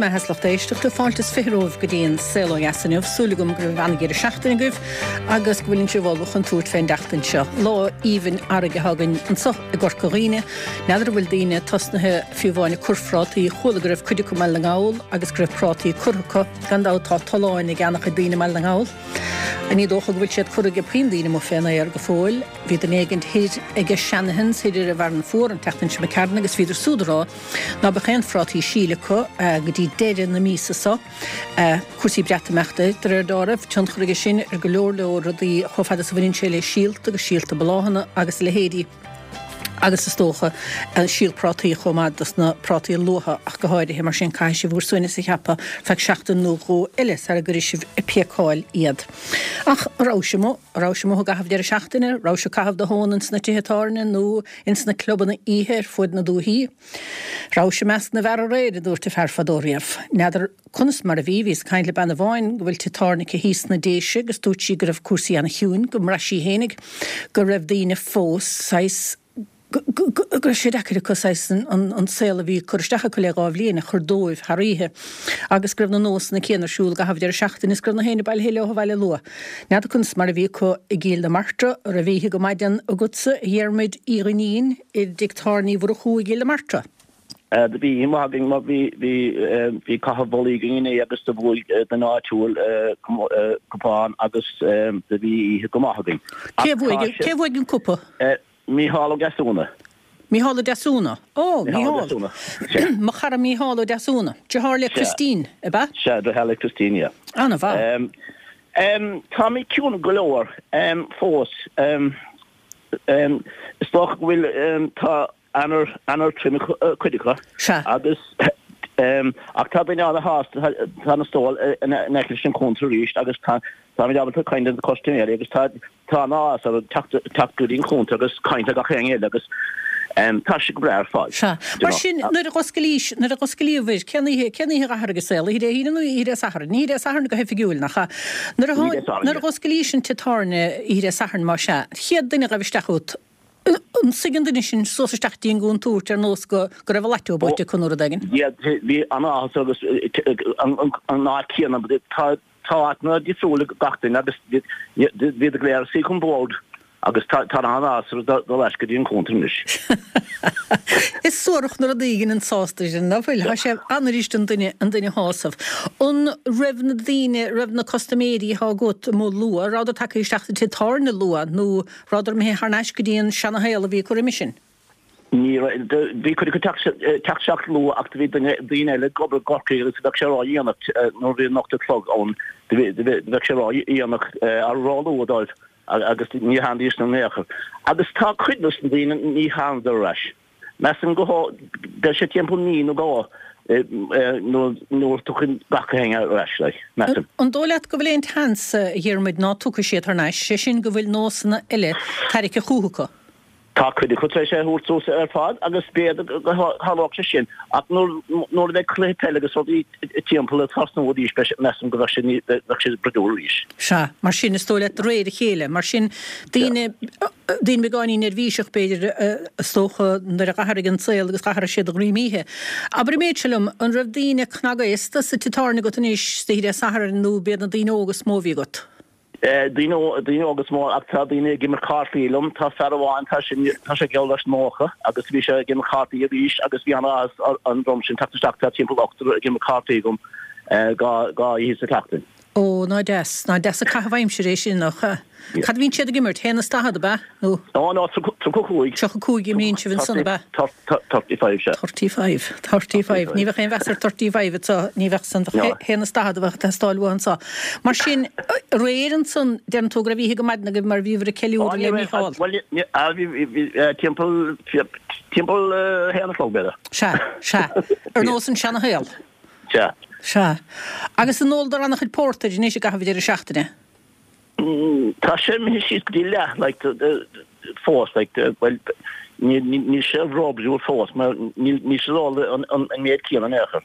maith is lucht éisteachta, fáilte is 20 romhaibh go dtí an Saol Ó Dheas inniu. Súil agam go raibh an-dheireadh seachtaine agaibh agus go bhfuileann sibh ullamh chun tabhairt fén dtseachtain seo. Lá aoibhinn fharraige atá againn anso i gCorca Dhuibhne. N'fheadar an bhfuil daoine tosnaithe fiú amháin ag cur phrátaí. Chuala go raibh cuid acu i mBaile na nGall agus go raibh prátaí curtha acu. Gan dabht tá tolláin ag an-chuid daoine i mBaile na nGall. Ní dócha go bhfuil siad curtha ag puinn daoine amuigh fén aer go fóill. Bhí duine éigint thoir ag Shanahan's thoir ar an bhFearann Fuar an tseachtain seo imigh tharainn agus bhíodar súd a rá ná beadh aon phrátaí síl acu go dtí deireadh na míosa so. Cúrsaí Breatimeachta, de réir dealraimh, tionchar aige sin ar go leor leor rudaí chomh fada is a bhaineann sé le síolta agus síolta bláthanna agus a leithéidí agus is dócha síol prátaí chomh maith dos na prátaí luatha ach go háirithe. Mar sin caithfidh sibh bhur suaimhneas a cheapadh feadh seachtain nó dhó eile sara gcuirfidh sibh ag píocáil iad. Ach an raibh sibh amuigh? An raibh sibh amuigh i gcaitheamh deireadh seachtaine? Raibh sibh ag caitheamh do thóin ins na tithe tábhairne nó ins na clubanna oíche ar fuaid na dúichí? Raibh sibh i measc na bhfear aréir, a dúirt an fear fadó riamh. N'fheadar conas mar a bhí, bhíos ag caint le bean amháin go bhfuil tigh tábhairne aici thíos sna Déise agus dúirt sí go raibh cúrsaí ana-chiúin, go mbraith sí fhéinig go raibh daoine fós saghas, go raibh sé deacair acu saghas an saol a bhí ag cur isteach acu le dhá bhliain a chur dóibh thar oíche agus go raibh na nósanna céanna ar siúl i gcaitheamh deireadh seachtaine is go raibh na héinne bailithe leo abhaile luath. N'fheadar conas mar a bhí acu i gCill na Martra, an raibh oíche go maidin agatsa, a Dhiarmuid Uí Dhuinnín, i dTigh Tábhairne Uí Mhurchú i gCill na Martra? Do bhí oíche mhaith againn mar bhí bhí bhí caitheamh bollaí againn inné agus do bhuaigh duine áitiúil cupán agus do bhí oíche go maith againn. Cé a bhuaigh cé a bhuaigh an cupa? Mícheál Ó Deasúna. Mícheál Ó Deasúna. Ó, Mícheál Ó Deasúna. Sea. Mo chara Mícheál Ó Deasúna. Deartháir le Christine, ab ea? Sea, deartháir le Christine, yeah. An-mhaith. Táimid ciúin go leor fós. Is dócha go bhfuil, tá Eanáir, Eanáir trom ag cuid acu. Sea. Agus, ach tá daoine ana-shásta, tá na stóil in aice leis an chuntar arís agus tá, táimid ábalta caint le na custaiméirí agus tá, tá an-áthas orthu teacht, teacht go dtí an chuntar agus caint le gach éinne eile agus tá sé go breá ar fad. Sea. Mar sin, nuair a dh'oscailís, nuair a dh'oscailíobhair, cén oíche, cén oíche a dh'athraigh an saol, oíche Dé hAoine nó oíche Dé Sathairn? Oíche Dé Sathairn go hoifigiúil, nach ea? Nuair a, nuair a dh'oscailís an tigh tábhairne oíche Dé Sathairn, más ea, chéad duine a ghaibh isteach chugat, An suigh an duine sin suas isteach dtí an gcúntúirt ar nós go go raibh a lotto buaite acu nó rud éigin? Bhí an-áthas agus an áit chéanna tá tá áiteanna difriúil ag gach duine agus bhíodar go léir ag suí chun bord agus tá tá an-áthas orthu dul ar ais go dtí an cuntar anois. Is suarach na rudaí a ghineann sásamh sin, nach bhfuil? Tá sé an-fhuirist an duine an duine a shásamh. An raibh na daoine, raibh na custaiméirí atá agat amuigh luath, rabhadar tagtha isteach sa tigh tábhairne luath nó Rabhadar imithe thar n-ais go dtí an seana-shaol a bhí acu roimhe sin. Ní raibh. Bhí cuid acu teacht isteach luath ach do bhí duine, daoine eile ag obair i gCorcaigh agus bheadh sé ró-dhéanach nuair a bhí an 8 a chlog ann, bheadh sé ró-dhéanach, ró-luath dóibh agus ní tháinidís in aon chor. Agus tá cuid dos na daoine ní thánadar ar ais. Measaim go beidh sé timpeall mí nó dhó nuair a tiocfaidh gach éinne ar ais, like, measaim. An dóigh leat go bhfuil aon tseans, a Dhiarmuid, ná tiocfaidh siad thar n-ais, sé sin go bhfuil nósanna eile tarraicthe chúthu acu? Tá cuid acu tar éis é a thabhairt suas ar fad agus b'fhéidir go dtarlódh sé sin ach nuair a bheidh cluiche peile agus rudaí timpeall ag tosnú arís measaim go bheadh sé bheadh sé bruidiúil arís. Sea, mar sin is dóigh leat de réir a chéile, mar sin daoine Daoine beagáinín neirbhíseach, b'fhéidir, is dócha, nuair a dh'athraigh an saol agus dh'athraigh siad a ngreim oíche. Abair an méid seo liom, an raibh daoine cnagaosta sa tigh tábhairne agat anois oíche Dé Sathairn nó b'iad na daoine óga is mó a bhí agat? Daoine, daoine óga is mó ach tá daoine ag imirt cártaí liom. Tá fear amháin, tá sé, tá sé geall leis 90 agus bhí sé ag imirt cártaí arís agus bhí an-áthas ar an dream sin teacht isteach, tá timpeall ochtar ag imirt cártaí agam dhá, dhá oíche sa tseachtain. Ó, ná deas, ná deas an caitheamh aimsire é sin, nach ea? Cad a bhíonn siad ag imirt? Haon is daichead, ab ea? Nó? Ó, ná, 35. 35 a imríonn sibh ansan, ab ea? 35, sea. 35, 35. Ní bheadh aon mheas ar 35 anso, ní bheadh san, bheadh haon is daichead a bheadh ag teastáil uathu anso. Mar sin, aréir ansan, deireann tú go raibh oíche go maidin agaibh mar bhíobhair ag ceiliúradh le Mícheál. Bhuel, bhí, bhí, timpeall, timpeall a haon a chlog, b'fhéidir. Sea, sea. Ar nós an seana-shaol. Sea. Sea. Agus an óladar an-chuid pórtair anois i gcaitheamh an deireadh seachtaine? Tá sé imithe síos go dtí leath, like, fós, like, bhuel, níl sé róbhrúite fós, mar níl siad ag ól an méid céanna in aon chor.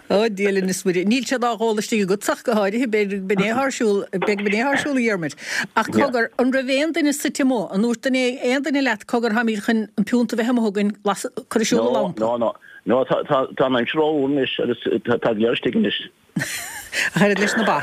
Ó, Dia linn is Muire. Níl siad á dh'ól istigh agat ach go háirithe, b'fhéidir go b'in é atá ar siúl, b'fhéidir go b'in é atá ar siúl, a Dhiarmuid. Ach cogar, an raibh aon duine suite amuigh? An ndúirt duine, aon duine leat, cogar, táimid chun an piúnta a bheith amuigh againn, las, cuir ar siúl an lampa? No, no, no. No, tá, tá, tá an aimsir rófhuar anois agus tá, tá go léir istigh anois. Ach oiread leis na ba.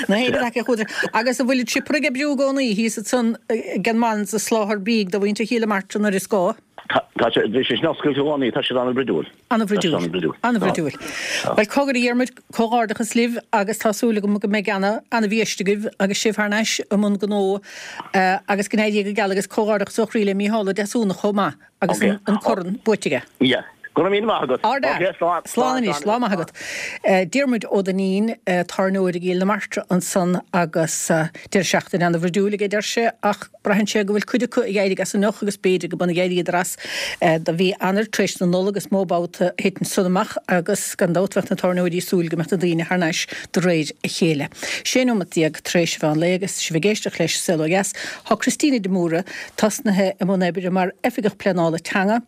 Na héin acu chuadar. Agus an bhfuil an siopa ag oibriú i gcónaí thíos ansan ag an Mans ag soláthar bídh do mhuintir Chill na Martra nuair is gá? Tá, tá sé, bhí sé sin oscailte i gcónaí, tá siad an-bhruidiúil. An-bhruidiúil. An-bhruidiúil. Bhuel, cogar a Dhiarmuid, comhghairdeachas libh agus tá súil agam go mbeidh ana-bhiaiste agaibh agus sibh thar n-ais i mbun gnó agus go n-éirí go geal agus comhghairdeachas ó chroí le Mícheál Ó Deasúna chomh maith. Agus an corn buaite aige. Yeah. Go raibh míle maith agat. Ard-fhear. Slán. Slán anois. Lá maith agat. Diarmuid Ó Duinnín, tábhairneoir i gCill na Martra ansan agus deireadh seachtaine ana-bhruidiúil aige deir sé ach braitheann sé go bhfuil cuid acu ag éirigh as anocht agus b'fhéidir go b'ionann ag éiríodar as do mhí Eanáir tar éis na Nollag is mó babhta a thiteann san amach agus gan dabht bheadh na tábhairneoirí ag súil go mbeadh na daoine thar n-ais de réir a chéile. 16 nóimeat tar éis an mheán lae agus sibh ag éisteacht leis Saol Ó Dheas. Tá Christina de Mórdha tosnaithe i mbun oibre mar Oifigeach Pleanála Teanga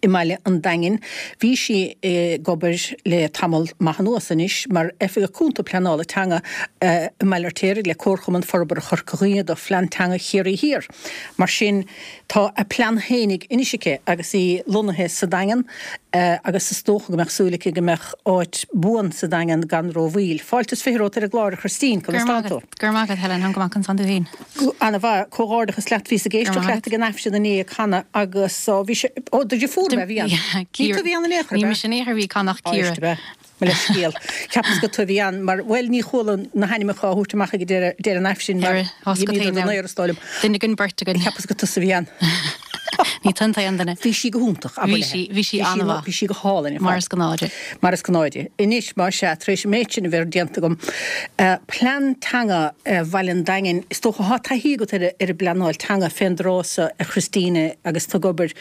i mbaile an Daingin. Bhí sí ag obair le tamall maith anuas anois mar Oifigeach Cúnta Pleanála Teanga i mBaile Fheirtéaraigh le Comharchumann Forbartha Chorca Dhuibhne do Phlean Teanga Chiarraí Thiar. Mar sin, tá a plean fhéinig anois aici agus í lonnaithe sa Daingean agus is dócha go mbeadh súil aici go mbeadh áit buan sa Daingean gan rómhoill. Fáilte is 20 romhat ar an gclár, a Christine, conas tánn tú? Go raibh maith agat, Helen, táim go maith, conas tánn tú féin? Ana-mhaith, comhghairdeachas leat, bhíos ag éisteacht leat ag an Aifreann inné ag canadh agus bhí sé, ó, do dheirfiúr ab ea a bhí ann? Ní tú a bhí ann in aon chor, ab ea? Ní mise in aon chor a bhí ag canadh ach Ciara. Éist, ab ea? Mo leithscéal. Cheapas gur tú a bhí ann mar, bhuel, ní chuala na hainmneacha á thabhairt amach ag deireadh an Aifrinn mar dh'imíodar den aer is dóigh liom. Duine den beirt againn. Cheapas gur tusa a bhí ann. Ní tú an t-aon duine. Bhí sí go hiontach, abair léi. Bhí sí, bhí sí an-mhaith. Bhí sí go hálainn ar fad. Mar is gnáth di. Mar is gnáth di. Anois, más ea, tar éis an méid sin a bheith déanta agam, plean teanga Bhaile an Daingin, is dócha, tá taithí agat ar an bpleanáil teanga fén dtráth so, a Christina, agus tú ag obair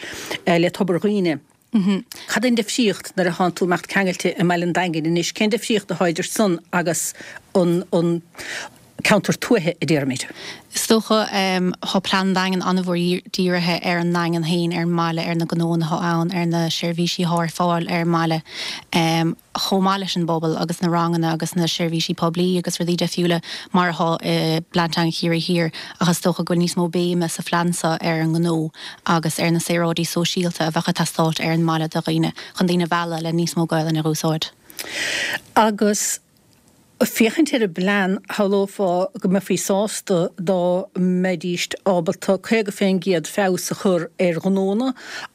le Tobar Dhuibhne. Cad é an difríocht nuair atánn tú ag imeacht ceangailte i mBaile an Daingin anois, cén difríocht atá idir san agus an ceantar tuaithe, a déarfaimid? Is dócha, tá Plean an Daingin an-mhór dírithe ar an nDaingean féin, ar an mbaile, ar na gnóanna atá ann, ar na seirbhísí atá ar fáil ar an mbaile, chomh maith leis an bpobal agus na ranganna agus na seirbhísí poiblí agus rudaí deifriúla mar atá i bPlean Teanga Chiarraí Thiar ach is dócha go bhfuil níos mó béime sa phlean seo ar an ngnó agus ar na saoráidí sóisialta a bheadh ag teastáilt ar an mbaile do dhaoine, chun daoine a mhealladh le níos mó Gaelainne a dh'úsáid. Agus féachaint ar an bplean, shamhlófá go mbeifí sásta dá mbeidíst ábalta 50% feabhas a chur ar ghnónna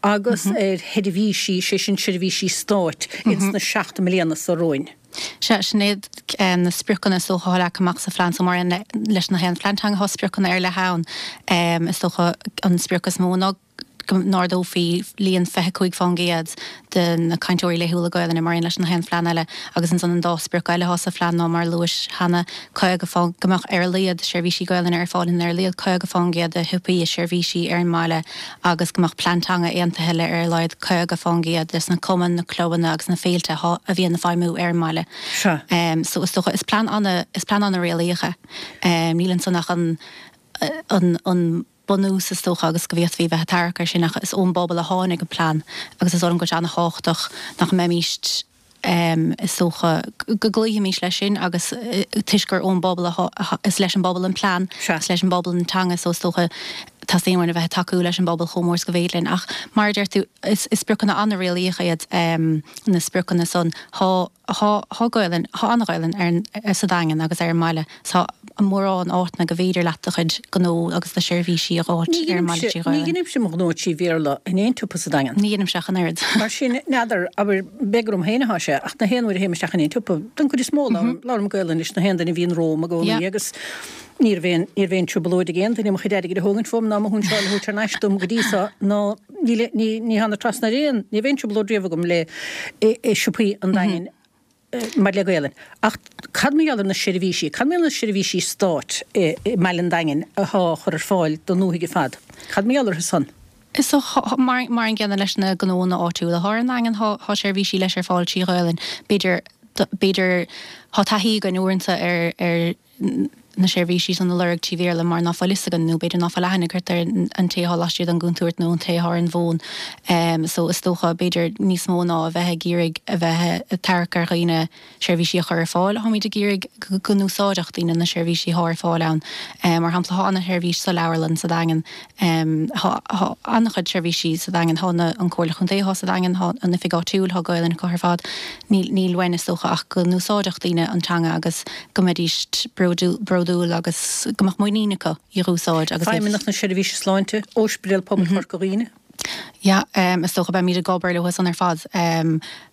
agus ar sheirbhísí, sé sin seirbhísí stáit, ins na 7 mbliana so romhainn. Sea, sin iad na spriocanna is dócha atá leagtha amach sa phlean so mar aon leis na haon phlean teanga tá spriocanna ar leith ann. Is dócha an sprioc is mó ná go n-ardófaí líon 25% de na cainteoirí laethúla Gaelainne mar aon leis na haon phlean eile agus ansan an dá sprioc eile atá sa phlean ná mar a luais cheana 50 fán go mbeadh ar a laghad seirbhísí Gaelainne ar fáil in ar a laghad 50% de shiopaí is seirbhísí ar an mbaile agus go mbeadh plean teanga aontaithe le ar a laghad 50% des na cumainn, na clubanna agus na féilte atá, a bhíonn ag feidhmiú ar an mbaile. Sea. So is dócha, is plean ana, is plean ana réalaíoch é. Níl ansan ach an, an, an bunús is dócha agus go bhféadfaí bheith ag tarrac air sin ach is ón bpobal a tháinig an plean agus is dóigh liom go bhfuil sé ana thábhachtach nach mbeimíst, is dócha go gcloífimís leis sin agus toisc gur ón bpobal a, is leis an bpobal an plean, is leis an bpobal an teanga so is dócha teastaíonn uainn a bheith ag tacú leis an bpobal chomh mór is go bhféidir linn. Ach mar a deir tú, is spriocanna an-réalaíoch iad na spriocanna san. Tá, tá, tá Gaolainn, tá an-Ghaolainn ar an, sa Daingean agus ar an mbaile. Tá mórán áiteanna go bhféidir leat do chuid gnó agus do sheirbhísí a dh'fháilt ar an mbaile trí Ghaelainn. Ní dheinimse mo ghnó trí Bhéarla in aon tsiopa sa Daingean. Ní dheinimse ach an oiread. Mar sin, n'fheadar, abair, b'fhéidir gur orm féin atá sé, ach na haon uair a théim isteach in aon tsiopa, don chuid is mó, labhraím Gaelainn leis na haon duine a bhíonn romham i gcónaí agus ní raibh aon, ní raibh aon trioblóid ag aon duine mo chuid airgid a thógaint uaim ná mo shúinseáil a thabhairt thar n-ais dom go dtí so, ná ní, ní, ní thána trasna ar aon, ní raibh aon trioblóid riamh agam le i siopaí an Daingin. maidir le Gaelainn. Ach cad mar gheall ar na seirbhísí? Cad mar gheall ar na seirbhísí stáit i mBaile an Daingin athá á chur ar fáil don ndúthaigh ar fad? Cad mar gheall orthu san? Is dócha, mar an gcéanna leis na gnóanna áitiúla athá ar an nDaingean, thá seirbhísí leis ar fáil trí Ghaelainn. B'fhéidir, b'fhéidir, thá taithí againn uaireanta ar, ar. na seirbhísí san a lorg trí Bhéarla mar ná fuil fhios againn nó b'fhéidir ná fuil aithne agat ar an té atá laistiar den gcontúirt nó an té atá ar an bhfón. So is dócha b'fhéidir níos mó ná a bheith ag iarraidh a bheith ag tarrac ar dhaoine seirbhísí a chur ar fáil, táimid ag iarraidh go n-úsáidfeadh daoine na seirbhísí atá ar fáil ann. Mar shampla tá ana-sheirbhís sa leabharlann sa Daingean. Tá an-chuid seirbhísí sa Daingean. Tá an Comhairle Chontae atá sa Daingean, tá an oifig áitiúil, tá Gaolainn acu ar fad. Níl uainn, is dócha, ach go n-úsáidfeadh daoine an teanga agus go mbeidís bródúil agus go mbeadh muinín acu í a úsáid agus iad. Feidhmeannacht na Seirbhíse Sláinte, Ospidéal Pobail Chorca Dhuibhne. Yeah, is dócha beimid ag obair leo san ar fad.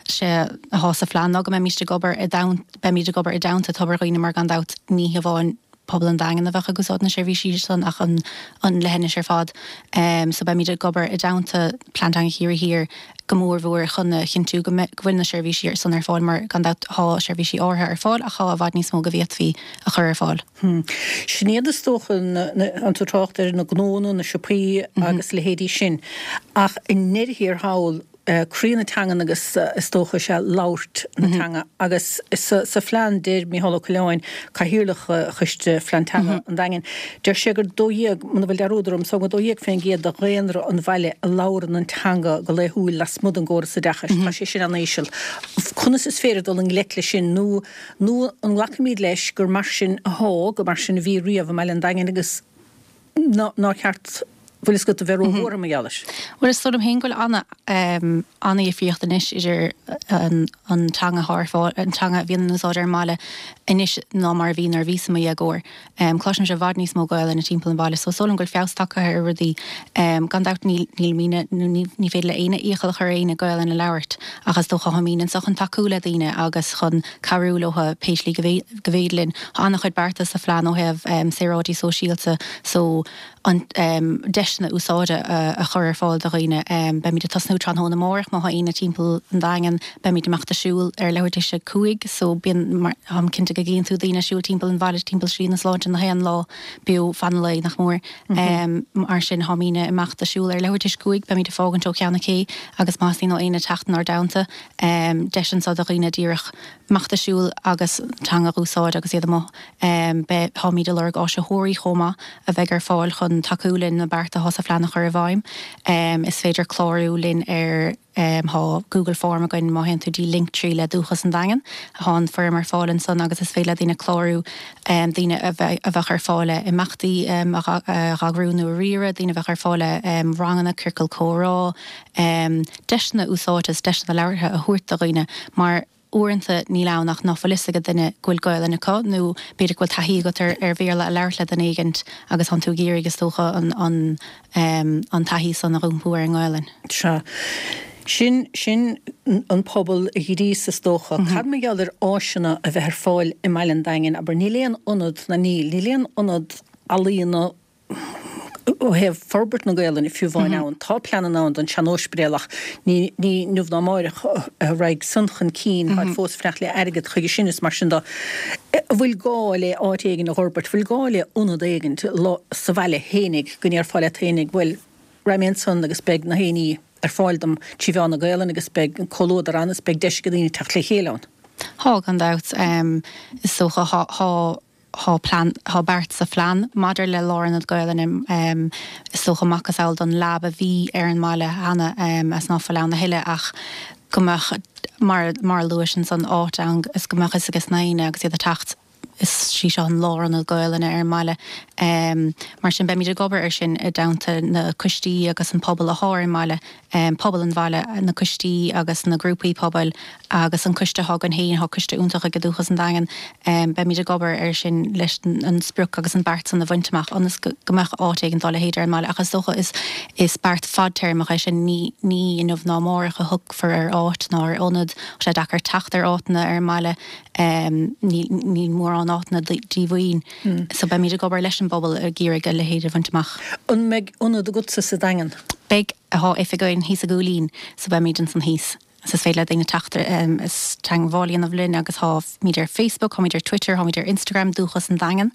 Sé atá sa phlean ná go mbeimid ag obair i dteann, beimid ag obair i dteannta Tobar Dhuibhne mar gan dabht ní hamháin pobal an Daingin a bheadh ag úsáid na seirbhísí san ach an leithinis ar fad. So beimid ag obair i dteannta Plean Teanga Chiarraí Thiar go mór mhór chun a chinntiú go bhfuil na seirbhísí san ar fáil mar gan dabht tá seirbhísí áirithe ar fáil ach tá i bhfad níos mó go bhféadfaí a chur ar fáil. Sin iad is dócha an tú trácht ar na gnóanna, na siopaí agus leithéidí sin ach i ndeireadh thiar thall, croí na teangan agus is dócha is ea labhairt na teanga agus sa phlean deir Micheál Ó Coileáin, Cathaoirleach Choiste Phlean Teanga an Daingin, deir sé gur 12, muna bhfuil dearúd orm, so 12% de dhaonra an bhaile a labhrann an teanga go laethúil lasmuigh den gcóras oideachais. Tá sé sin an-íseal. Conas is féidir dul i ngleic leis sin nó nó an nglacfaimid leis gur mar sin athá, gur mar sin a bhí riamh i mbaile an Daingin agus nár cheart, bhfuil fhios agat, a bheith róbhuartha mar gheall air. Bhuel, is dóigh liom féin go bhfuil ana, ana-dhifríocht anois idir an, an teanga atá ar fáil, an teanga a bhíonn in úsáid ar an mbaile anois ná mar a bhí nuair a bhíos i mo dhéagóir. Cloisimse i bhfad níos mó Gaelainne timpeall an bhaile so is dóigh liom go bhfuil feabhas tagtha ar rudaí. Gan dabht níl, nílimidne, nó ní, ní féidir le éinne iachall a chur ar éinne Gaelainn a labhairt ach is dócha táimidne anso chun tacú le daoine agus chun cabhrú leo pé slí go bhféidir linn. Tá an-chuid bearta sa phlean ó thaobh saoráidí sóisialta so an deiseanna úsáide a chur ar fáil do dhaoine. Beimid ag tosnú tráthnóna amárach má tá éinne timpeall an Daingin. Beimid ag imeacht ag siúl ar leathuair tar éis a 5 so bíonn, táim cinnte go gcíonn tú daoine ag siúl timpeall an bhaile timpeall Slí na Sláinte na haon lá beo fan an lae nach mór. Mar sin táimidne ag imeacht ag siúl ar leathuair tar éis a 5, beimid ag fágaint ó Cheann na Cé agus má theastaíonn ó éinne teacht inár dteannta, Deis anso do dhaoine díreach imeacht ag siúl agus teanga a úsáid agus iad amuigh. Beidh, táimid ag lorg áisitheoirí chomh maith a bheidh ar fáil chun tacú linn na bearta atá sa phlean a chur i bhfeidhm. Is féidir clárú linn ar, tá Google Form againn má théann tú dtí Linktree le Dúchas an Daingin. Tá an foirm ar fáil ansan agus is féidir le daoine clárú, daoine a bheidh, a bheadh ar fáil le imeachtaí a eagrú nó a riaradh, daoine a bheadh ar fáil le ranganna, ciorcal comhrá, deiseanna úsáide is deiseanna labhartha a thabhairt do dhaoine mar uaireanta níl ann ach ná fuil fhios ag duine go bhfuil Gaolainn acu nó b'fhéidir go bhfuil taithí agat ar ar Bhéarla a labhairt le duine éigint agus tánn tú ag iarraidh is dócha an an an taithí san a iompú ar an nGaolainn. Sea. Sin, sin an pobal a ghríos is dócha. Cad mar gheall ar áiseanna a bheith ar fáil i mbaile an Daingin? Abair, níl aon ionad, ná níl, níl aon ionad ealaíona, ó thaobh forbairt na Gaolainne fiú amháin ann. Tá pleananna ann don sean-óispidéal ach ní inniu ná amáireach a raghaidh san chun cinn, táid fós ag fanacht le airgead chuige sin is mar sin de. An bhfuil gá le áit éigin a dh'fhorbairt, bhfuil gá le ionad éigin sa bhaile fhéinig go ndéarfá leat fhéinig bhuel raghaidh mé ansan agus beidh na héinní ar fáil dom trí mheán na Gaolainne agus beidh an comhluadar ann is beidh deis ag daoine teacht le chéile ann. Tá, gan dabht. Is dócha, tá. Tá plean, tá beart sa phlean maidir le lárionad Gaelainne, is dócha macasamhail don lab a bhí ar an mbaile cheana is ná fuil ann a thuilleadh ach go mbeadh, mar, mar a luais ansan, áit ann is go mbeadh fhios ages na héinne agus iad ag teacht, is í seo an lárionad Gaelainne ar an mbaile. Mar sin beimid ag obair ar sin i dteannta na coistí agus an pobal athá ar an mbaile. pobal an bhaile, na coistí agus na grúpaí pobail agus an coiste atá againn féin, tá coiste iontach ag Dúchas an Daingin, beimid ag obair air sin leis an sprioc agus an beart san a bhaint amach ionas go mbeadh áit éigin dá leithéid ar an mbaile. Ach is dócha is is beart fadtéarmach é sin, ní ní inniu ná amárach a thiocfar ar áit ná ar ionad, tá sé deacair teacht ar áiteanna ar an mbaile, níl níl mórán áiteanna díomhaoin. So beimid ag obair leis an bpobal ag iarraidh a leithéid a bhaint amach. An mbeidh ionad agatsa sa Daingean? Beidh. Tá oifig againn thíos i gCúilín so beimid ansan thíos. Is féidir le daoine teacht is teagmháil a dhéanamh linn agus táimid ar Facebook, táimid ar Twitter, táimid ar Instagram, Dúchas an Daingean.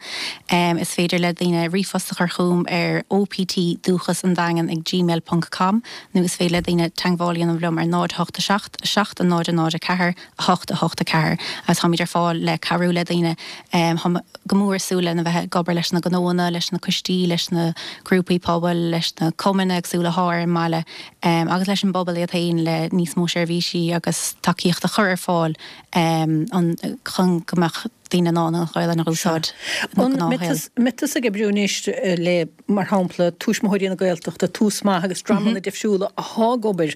Is féidir le daoine ríomhphost a chur chugam ar optdúchasandaingean ag gmail ponc com nó is féidir le daoine teagmháil a dhéanamh liom ar 0 8 7 7 0 0 4 8 8 4 agus táimid ar fáil le cabhrú le daoine. Táim go mór ag súil lena bheith ag obair leis na gnóanna, leis na coistí, leis na grúpaí pobail, leis na cumainn éagsúla athá ar an mbaile agus leis an bpobal iad féin le níos mó seirbhísí agus tacaíocht a chur ar fáil chun go mbeadh daoine in ann an Ghaelainn a úsáid ina ngnáthshaol. An mbeidh tusa ag oibriú anois le, mar shampla, Tuismitheoirí na Gaeltachta, Tús Maith agus dreamanna difriúla athá ag obair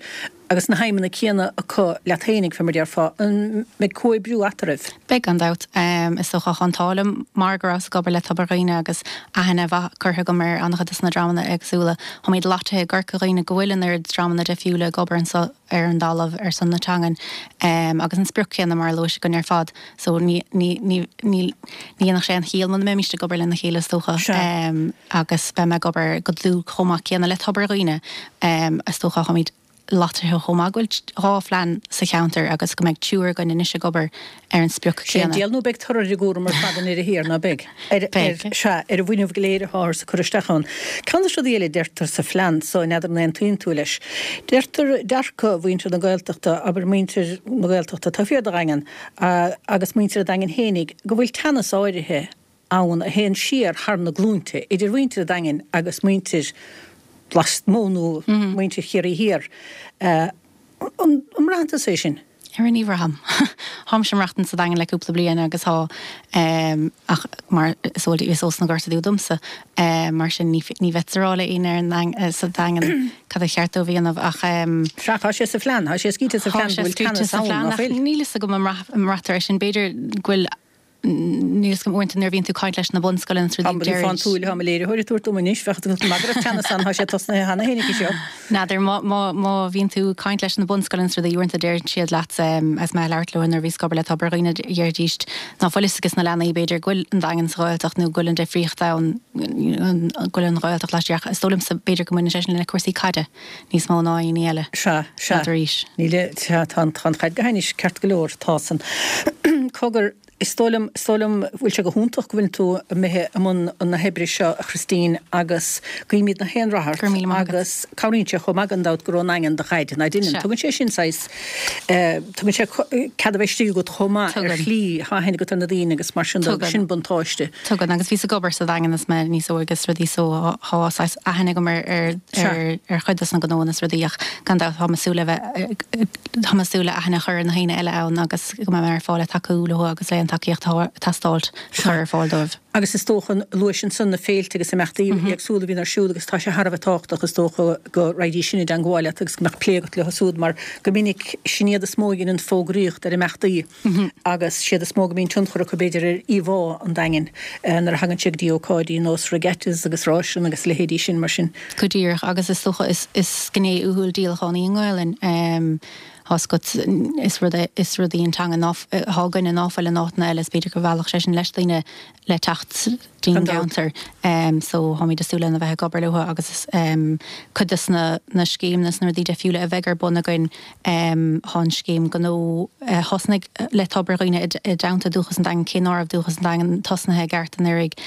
agus na haidhmeanna céanna acu leat fhéinig, fé mar déarfá, an mbeidh comhoibriú eatarthu? Beidh, gan dabht. Is dócha, tá an t-ádh liom mar go rabhas ag obair le Tobar Dhuibhne agus aithne mhaith curtha agam ar an-chuid de na dreamanna éagsúla. Táimid loitithe i gCorca Dhuibhne go bhfuil an oiread dreamanna difriúla ag obair anseo ar an dtalamh ar son na teangan agus an sprioc chéanna mar a luais againn ar fad. So ní, ní, ní, ní dhéanfadh sé aon chiall muna mbeimíst ag obair lena chéile is dócha. Agus beidh mé ag obair go dlúth chomh maith céanna le Tobar Dhuibhne. Is dócha, táimid. loitithe chomh maith go bhfuil 2 phlean sa cheantar agus go mbeidh triúr againn anois ag obair ar an sprioc Sé an chéanna. diabhal nó beidh toradh ar an gcúram ar fad i ndeireadh thiar, ná beidh? Ar, ar, sea, ar an bhfuinneamh go léir atáthar ag cur isteach ann. Ceann de na rudaí eile a deirtear sa phlean so, n'fheadar an aontaíonn tú leis, deirtear dearcadh mhuintir na Gaeltachta, abair muintir na Gaeltachta taobh thiar de Dhaingean agus muintir an Daingin fhéinig, go bhfuil teannas áirithe ann a théann siar thar na glúinte idir mhuintir an Daingin agus muintir lasmuigh nó muintir Chiarraí Thiar. An mbraitheann tusa é sin? Ara ní bhraithim. Táimse ag maireachtaint sa Daingean le cúpla bliain agus tá, ach mar is eol is ós na Gorta Dubha domsa, mar sin ní bheadh a rá le éinne ar an sa Daingean cad a cheart dóibh a dhéanamh ach. Sea, tá sé sa phlean, tá sé scríte sa phlean go bhfuil teannas ann, ná fuil? Níl fhios agam an mbraitear é sin, b'fhéidir go bhfuil Níl fhios agam, uaireanta nuair a bhíonn tú ag caint leis na bunscoileanna is rudaí, deirid. Fán tsúil atá mo léiritheoir ag tabhairt dom anois, bheadh tú ag magadh teannas ann, tá sé tosnaithe cheana féin aici seo. N'fheadar, má, má, má bhíonn tú ag caint leis na bunscoileanna is rudaí, uaireanta deireann siad leat, agus mé ag labhairt leo nuair a bhíos ag obair le Tobar Dhuibhne, deiridís ná fuil fhios ages na leanaí, b'fhéidir, go bhfuil an Daingean sa Ghaeltacht nó go bhfuil an difríocht ann, go bhfuil an Ghaeltacht laistiar ach is dóigh liomsa, b'fhéidir go mbaineann sé sin le cúrsaí caide níos mó ná aon ní eile. Sea, sea. N'fheadar arís. Níl, sea, tá an, tá an chaid go hainnis, ceart go leor, tá san. Cogar, is dóigh liom, is dóigh liom, bhfuil sé go hiontach go bhfuil tú imithe i mbun na hoibre seo, a Christine, agus guímid na haon rath ort. Go raibh míle maith agat. Agus cabhraíonn sé chomh maith gan dabht gur ón nDaingean do dhaid, ná deineann? Sea. Tugann sé sin saghas, tugann sé cead a bheith istigh agat chomh maith ar Tugann. shlí, tá aithne agat ar na daoine agus mar sin de, Tugann. sin buntáiste. Tugann, agus bhíos ag obair sa Daingean is mé níos óige is rudaí so thá saghas aithne agam ar ar ar ar chuid dos na gnóanna is rudaí ach gan dabht táim ag súil le bheith táim ag súil le aithne a chur ar na haoinne eile ann agus go mbeidh mé ar fáil le tacú leo agus le an tacaíocht atá ag teastáilt a chur ar fáil dóibh. Agus is dócha, luais ansan na féilte agus imeachtaí éagsúla a bhíonn ar siúl agus tá sé thar a bheith tábhachtach is dócha go raghaidís sin i dteangmháil leat agus go mbeadh plé agat leo siúd mar go minic sin iad is mó a dheineann fógraíocht ar imeachtaí. agus siad is mó go mbíonn tionchar acu b'fhéidir ar íomhá an Daingin nuair a thagann sé go dtí ócáidí nós regattas agus ráiseanna agus a leithéidí sin mar sin. Go díreach, agus is dócha is is gné uathúil díolachán í an Ghaelainn. Tá 's agat, is rud é, is rud í an teanga ná, thá againne ná fuil in áiteanna eile, is b'fhéidir go mheallfadh sé sin leis daoine le teacht dtí'n gceantar. So táimid ag súil lena bheith ag obair leo agus cuid de na na scéimeanna is na rudaí deifriúla a bheidh ar bun againn thá an scéim gnó a thosnaigh le Tobar Dhuibhne i dteannta Dúchas an Daingin cé ná raibh Dúchas an Daingin tosnaithe i gceart anuraidh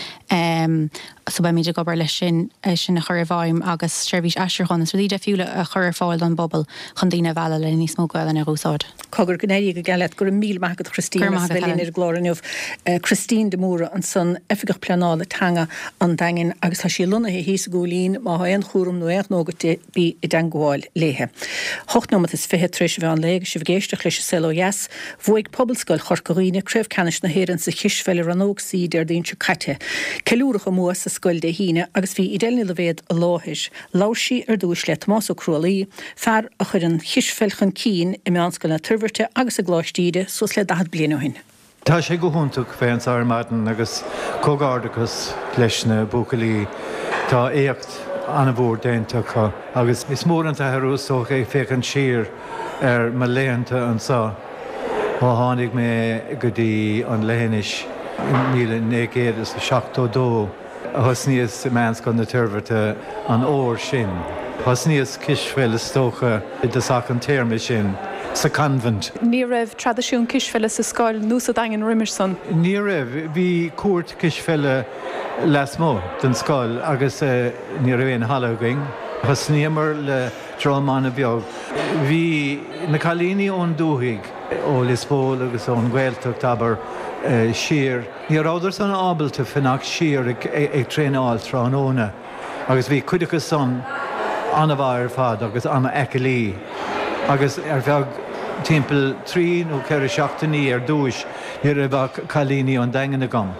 so beimid ag obair leis sin é sin a chur i bhfeidhm agus seirbhís aistriúcháin is rudaí deifriúla a chur ar fáil don bpobal chun daoine a mhealladh le níos mó Gaelainne a dh'úsáid. Cogar, go n-éirí go geal leat. Go raibh míle maith agat Christine Go raibh as maith a agat bheith linn Helen. ar an gclár inniu. Christine de Mórdha ansan, Oifigeach Pleanála Teanga an Daingin agus tá sí lonnaithe thíos i gCúilín. Má thá aon chúram nó aon ghnó agat di, bí i dteangmháil léithe. Hocht nóimeat is fiche tar éis an mheán lae agus sibh ag éisteacht leis an Saol Ó Dheas. Bhuaigh Pobalscoil Chorca Dhuibhne Craobh Ceannais na hÉireann sa Chispheil i Rannóg C Déardaoin seo caite. Ceiliúradh a mbua sa scoil Dé hAoine agus bhí Edel Ní Loibhéad i láthair. Labhair sí ar dtúis le Tomás Ó Crualaoí, fear a chuir an chispheil chun cinn i Meánscoil na Toirbhirte agus i gColáiste Íde suas le 40 bliain ó shin. Tá sé go hiontach bheith anseo ar maidin agus comhghairdeachas leis na buachaillí. Tá éacht an-mhór déanta acu agus is mór an t-athrú is dócha ag féachaint siar ar mo laethanta anseo ó tháinig mé go dtí an leithinis i 1972. Thosnaíos i Meánscoil na Toirbhirte an uair sin. Thosnaíos cispheil is dócha i dtosach an téarma sin. sa Convent. Ní raibh traidisiún cispheile sa scoil nó sa Daingean roimis san? Ní raibh. Bhí cúirt cispheile lasmuigh den scoil agus ní raibh aon halla againn. Thosnaíomar le dream an-bheag. Bhí na cailíní ón dúthaigh, ó Lios Póil agus ón Ghaeltacht, abair, siar. Ní rabhadar san ábalta fanacht siar ag traenáil tráthnóna agus bhí cuid acu san an-mhaith ar fad agus an-aclaí agus ar feadh timpeall trí nó ceithre seachtainí ar dtúis ní raibh ach cailíní ón Daingean agam.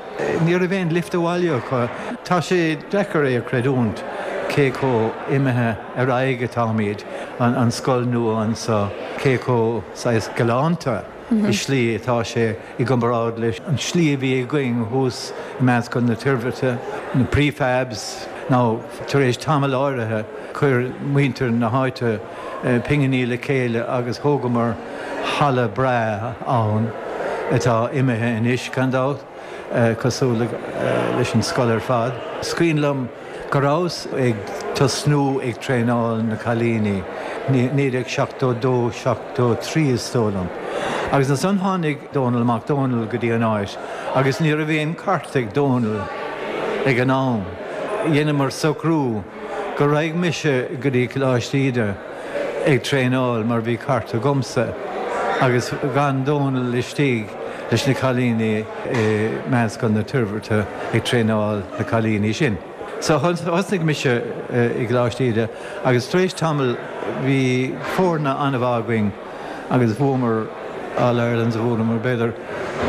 Ní raibh aon lift abhaile acu. Tá sé deacair é a chreidiúint cé chomh imithe ar aghaidh atáimid, an scoil nua anso, cé chomh saghas galánta i slí atá sé i gcomparáid leis an slí a bhí againn thuas i Meánscoil na Toirbhirte, na prefabs, nó tar éis tamall áirithe chuir muintir na háite pinginí le chéile agus thógamar halla breá ann atá imithe anois, gan dabht, cosúil leis an scoil ar fad. Is cuimhin liom go rabhas ag tosnú ag traenáil na cailíní, 1972, 73 is dóigh liom, agus ansan tháinig Dónal Mac Dónaill go dtí an áit agus ní raibh aon cairt ag Dónal ag an am. Dheineamar socrú go raghadh mise go dtí Coláiste Íde ag traenáil mar bhí cairt agamsa agus d'fhan Dónal istigh leis na cailíní i Meánscoil na Toirbhirte ag traenáil na cailíní sin. So thosnaigh mise i gColáiste Íde agus tar éis tamaill bhí foirne an-mhaith againn agus bhuamar All Irelands, bhuamar b'fhéidir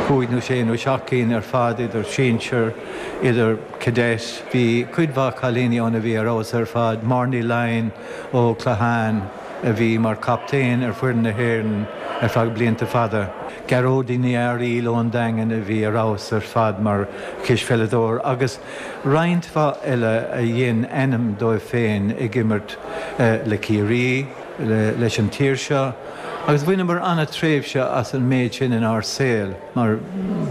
cúig nó sé nó seacht gcinn ar fad idir sinsir, idir cadet. Bhí cuid mhaith cailíní ann a bhí ar fheabhas ar fad, Máire Ní Laighin ó Clachan a bhí mar chaptaen ar foireann na hÉireann ar feadh blianta fada, Gearóidín Ní Fhearaíl ón Daingean a bhí ar fheabhas ar fad mar chispheileadóir agus roinnt mhaith eile a dhein ainm dóibh féin ag imirt le Ciarraí, leis an tír seo agus bhaineamar an-tréimhse as an méid sin inár saol mar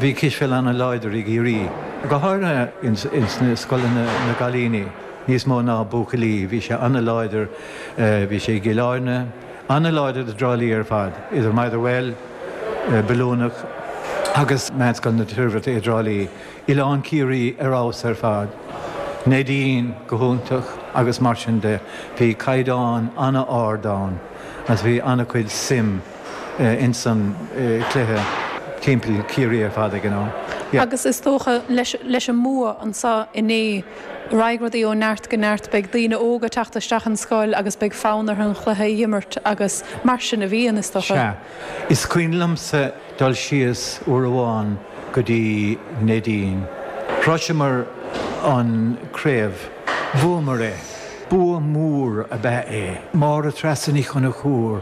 bhí cispheil an-láidir i gCiarraí, go háirithe ins na scoileanna na gcailíní níos mó ná buachaillí, bhí sé an-láidir, bhí sé i gCill Airne, an-láidir i dTrá Lí ar fad, idir Motherwell, Bilúnach agus Meánscoil na Toirbhirte i dTrá Lí. Oileán Ciarraí ar fheabhas ar fad, Neidín go hiontach agus mar sin de. Bhí caighdeán an-ard ann agus bhí an-chuid suim ins an chluiche timpeall Ciarraí ar fad ag an am. Yeah. Agus is dócha leis an mbua anseo inné, raghaidh rudaí ó neart go neart, beidh daoine óga ag teacht isteach an scoil agus beidh fonn orthu an chluiche a imirt agus mar sin a bhíonn, is dócha. Sea. Is cuimhin liomsa dul síos uair amháin go dtí Neidín. Shroiseamar an craobh. Bhuamar é. Bua mór ab ea é. Máire Treasa Ní Chonchúir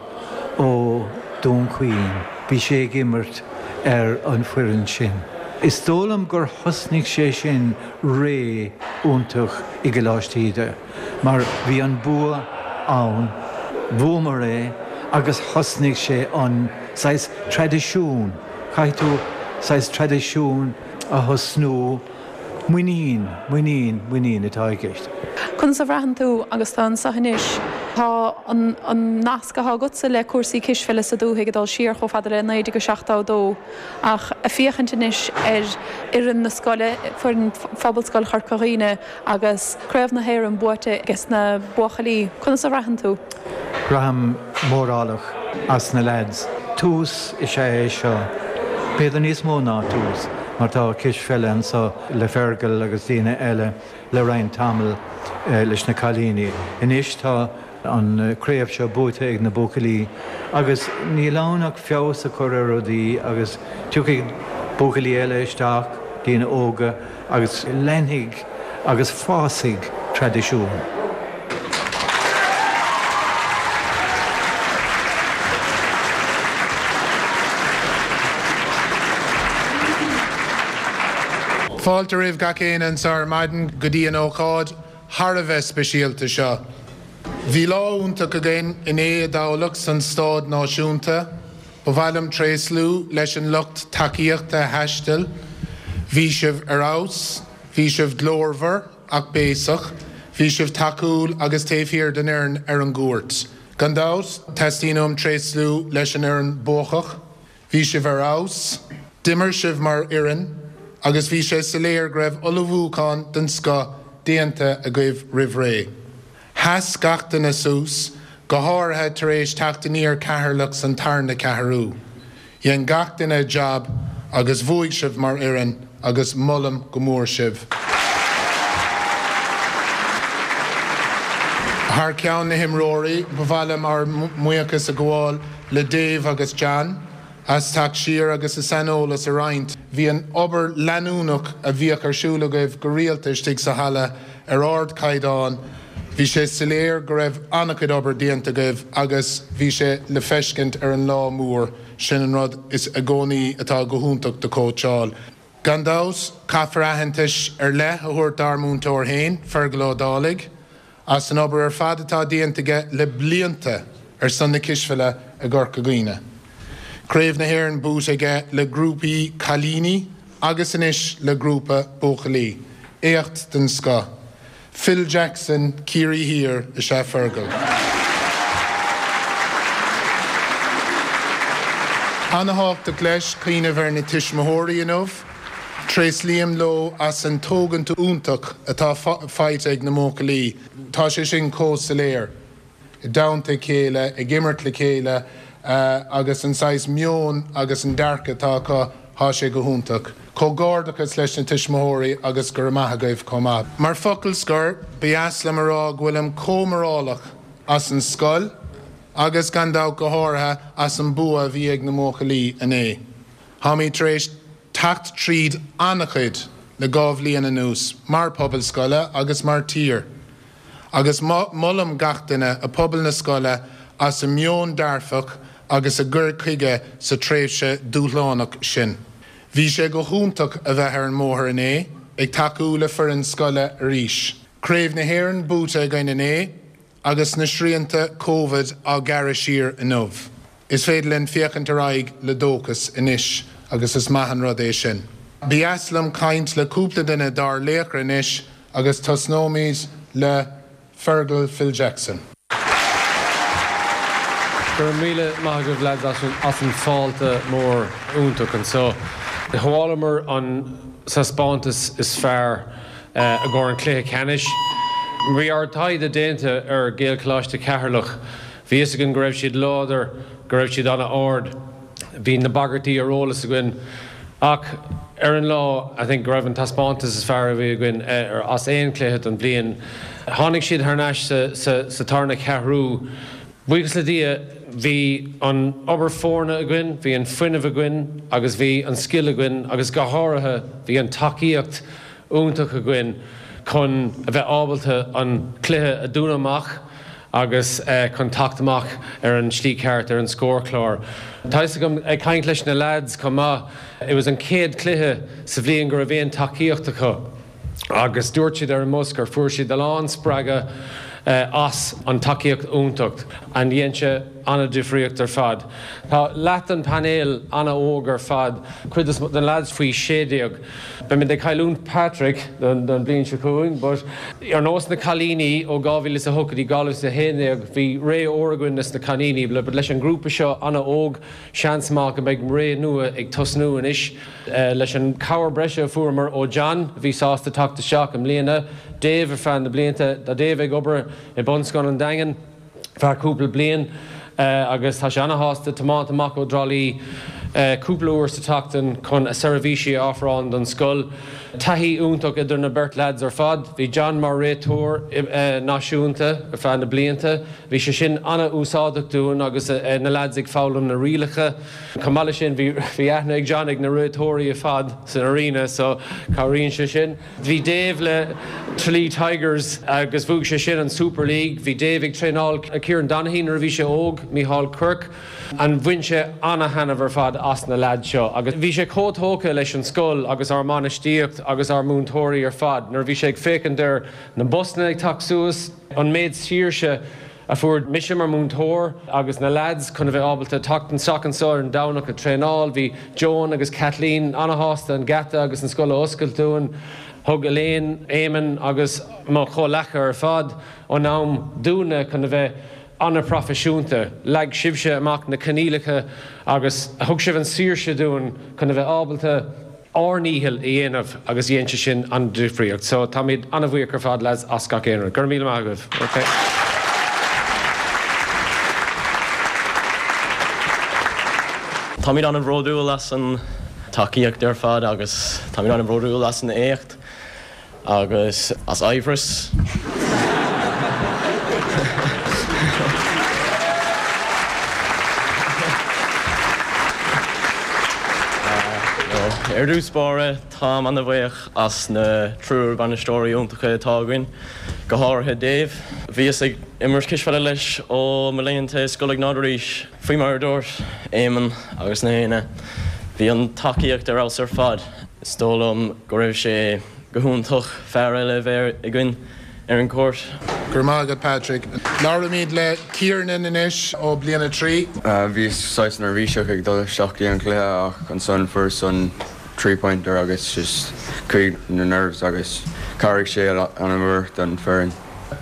ó Dún Chaoin, bhí sí ag imirt ar an foireann sin. Is dóigh liom gur thosnaigh sé sin ré iontach i gColáiste Íde. Mar bhí an bua ann, bhuamar é agus thosnaigh sé an saghas traidisiún, caithfidh tú saghas traidisiún a thosnú, muinín, muinín, muinín atá i gceist. Conas a bhraitheann tú agus tú anseo anois? Tá an nasc atá agatsa le cúrsaí cispheile sa dúthaigh ag dul siar chomh fada le 1972 ach ag féachaint anois ar fhoireann na scoile, foireann Phobalscoil Chorca Dhuibhne, Agus Craobh na hÉireann buaite ages na buachaillí, conas a bhraitheann tú? Braithim mórálach as na leaids. Tús is ea é seo. B'fhéidir níos mó ná tús, mar tá cispheile anso le Fergal agus daoine eile le roinnt tamall leis na cailíní. Anois tá an craobh seo buaite ag na buachaillí agus níl ann ach feabhas a chur ar rudaí agus tiocfaidh buachaillí eile isteach, daoine óga, agus leanfaidh agus fásfaidh traidisiún. Fáilte roimh gach éinne anseo ar maidin go dtí an ócáid thar a bheith speisialta seo. Bhí lá iontach againn inné i dTamhlacht san Staid Náisiúnta. Ba mhaith liom tréaslú leis an lucht tacaíochta a thaistil. Bhí sibh ar fheabhas. Bhí sibh glórmhar ach béasach. Bhí sibh tacúil agus taobh thiar den fhoireann ar an gcúirt. Gan dabht, teastaíonn uaim tréaslú leis an fhoireann buacach. Bhí sibh ar fheabhas, d'imir sibh mar fhoireann agus bhí sé soiléir go raibh ullmhúchán den scoth déanta agaibh roimh ré. Sheas gach duine suas, go háirithe tar éis teacht aniar Ceatharlach san tarna ceathrú. Dhein gach duine a jab agus bhuaigh sibh mar fhoireann agus molaim go mór sibh. Thar ceann na himreoirí, ba mhaith liom ár mbuíochas a ghabháil le Dave agus John as teacht siar agus a saineolas a roinnt. Bhí an obair leanúnach a bhíodh ar siúl agaibh go rialta istigh sa halla ar ardchaighdeán. Bhí sé soiléir go raibh an-chuid obair déanta agaibh agus bhí sé le feiscint ar an lá mór. Sin an rud is i gcónaí atá go hiontach do chóitseáil. Gan dabht, caithfear aitheantais ar leith a thabhairt dár múinteoir féin, Fergal Ó Dálaigh. as an obair ar fad atá déanta aige le blianta ar son na cispheile i gCorca Dhuibhne. Craobh na hÉireann buaite aige le grúpaí cailíní agus anois le grúpa buachaillí. Éacht den scoth. Phil Jackson Ciarraí Thiar is ea Fergal. Ana-thábhachtach leis cuimhneamh ar na tuismitheoirí inniu. Tréaslaím leo as an tógaint iontach atá faighte ag na mbuachaillí. Tá sé sin chomh soiléir. I dteannta a chéile, ag imirt le chéile agus an saghas meon agus an dearcadh atá acu, thá sé go hiontach. Comhghairdeachas leis na tuismitheoirí agus go raibh maith agaibh chomh maith. Mar focal scoir, ba dheas liom a rá go bhfuilim chomh mórálach as an scoil agus gan dabht go háirithe as an bua a bhí ag na mbuachaillí inné. Táimid tar éis teacht tríd an-chuid le 2 bhliain anuas, mar pobal scoile agus mar tír, agus molaim gach duine i pobal na scoile as a meon dearfach agus a gcur chuige sa tréimhse dúshlánach sin. Bhí sé go hiontach a bheith ar an mbóthar inné, ag tacú le foireann scoile arís. Craobh na hÉireann buaite againn inné agus na srianta Covid á ghearradh siar inniu. Is féidir linn féachaint ar aghaidh le dóchas anois agus is maith an rud é sin. Ba dheas liom caint le cúpla duine dár laochra anois agus tosnóimid le Fergal Phil Jackson. Go raibh míle maith agaibh lads as an fáilte mór iontach anseo. Shábhálamar an taispeántas is fearr i gcomhair an cluiche ceannais. Bhí ár dtaighde déanta ar Gaelcholáiste Cheatharlach. Bhí fhios againn go raibh siad láidir, go raibh siad an-ard. Bhí na bagairtí ar eolas againn. Ach ar an lá, I think go raibh an taispeántas is fearr a bhí againn as aon chluiche don bhliain. Tháinig siad thar n-ais sa tarna ceathrú. Buíochas le Dia, bhí an obair foirne againn, bhí an fuinneamh againn agus bhí an scil againn agus go háirithe bhí an tacaíocht iontach againn chun a bheith ábalta an cluiche a dúnadh amach agus chun teacht amach ar an slí ceart ar an scórchlár. Tá fhios agam, ag caint leis na leaids chomh maith, it was an chéad cluiche sa bhliain go raibh aon tacaíocht acu agus dúirt siad ar an mbus gur fuair siad a lán spreagadh as an tacaíocht iontach and dhein sé an-difríocht ar fad. Tá leath den painéal an-óg ar fad, cuid de na leaids faoi 16. Beimid ag cailliúint Patrick don bhliain seo chugainn but ar nós na cailíní ó 2008 go dtí 2011 bhí ré ór againn leis na cailíní but leis an grúpa seo an-óg seans maith go mbeidh ré nua ag tosnú anois leis an cabhair breise a fuaireamar ó John a bhí sásta teacht isteach i mbliana, Dave ar feadh na blianta, tá Dave ag obair i Bunscoil an Daingin. feadh cúpla bliain agus tá sé ana-shásta tiomáint amach ó dTrá Lí cúpla uair sa tseachtain chun a seirbhísí a ofráil don scoil. Taithí iontach idir na beirt leaids ar fad. Bhí John mar réiteoir náisiúnta ar feadh na blianta. Bhí sé sin ana-úsáideach dúinn agus na leaids ag foghlaim na rialacha. Chomh maith leis sin bhí aithne ag John ag na réiteoirí ar fad san arena so cabhraíonn sé sin. Bhí Dave le Tralee Tigers agus bhuaigh sé sin an Super League. Bhí Dave ag traenáil Kieran Donaghy nuair a bhí sé óg, Mícheál Quirke, and bhain sé ana-thaitneamh ar fad as na leaids seo agus bhí sé chomh tógtha leis an scoil agus ár mbainistíocht agus ár múinteoirí ar fad nuair a bhí sé ag féachaint ar na busanna ag teacht suas, an méid saoirse a fuair mise mar múinteoir agus na leaids chun a bheith ábalta teacht isteach anseo ar an Domhnach ag traenáil. Bhí Joan agus Kathleen ana-shásta an geata agus an scoil a oscailt dúinn. Thug Elaine, Eamon agus mo chomhleacaithe ar fad an am dúinne chun a bheith. An-phroifisiúnta. Leag sibhse amach na coinníollacha agus thug sibh an saoirse dúinn chun a bheith ábalta ár ndícheall a dhéanamh agus dhein sé sin an difríocht. So táimid an-bhuíoch ar fad lads as gach aon rud. Go raibh míle maith agaibh. Ok. Táimid an-bhródúil as an tacaíocht ar fad agus táimid an-bhródúil as an éacht. Agus as Aimhreas. Ar dtús báire, táim an-bhuíoch as na triúr bainisteoirí iontacha atá againn, go háirithe Dave. Bhíos ag imirt cispheile leis ó mo laethanta i Scoil Iognáid arís. Faoi mar a dúirt Éamonn agus na héinne, bhí an tacaíocht ar fheabhas ar fad. Is dóigh liom go raibh sé go hiontach fear eile a bheith againn ar an gcúirt. Go raibh maith agat Patrick. Labhraímid le Kiernan anois ó Bliain 3. Bhíos saghas neirbhíseach ag dul isteach dtí an cluiche ach ansan fuaireas an three pointer agus just chuaigh na nerves agus chabhraigh sé an-mhór don foireann.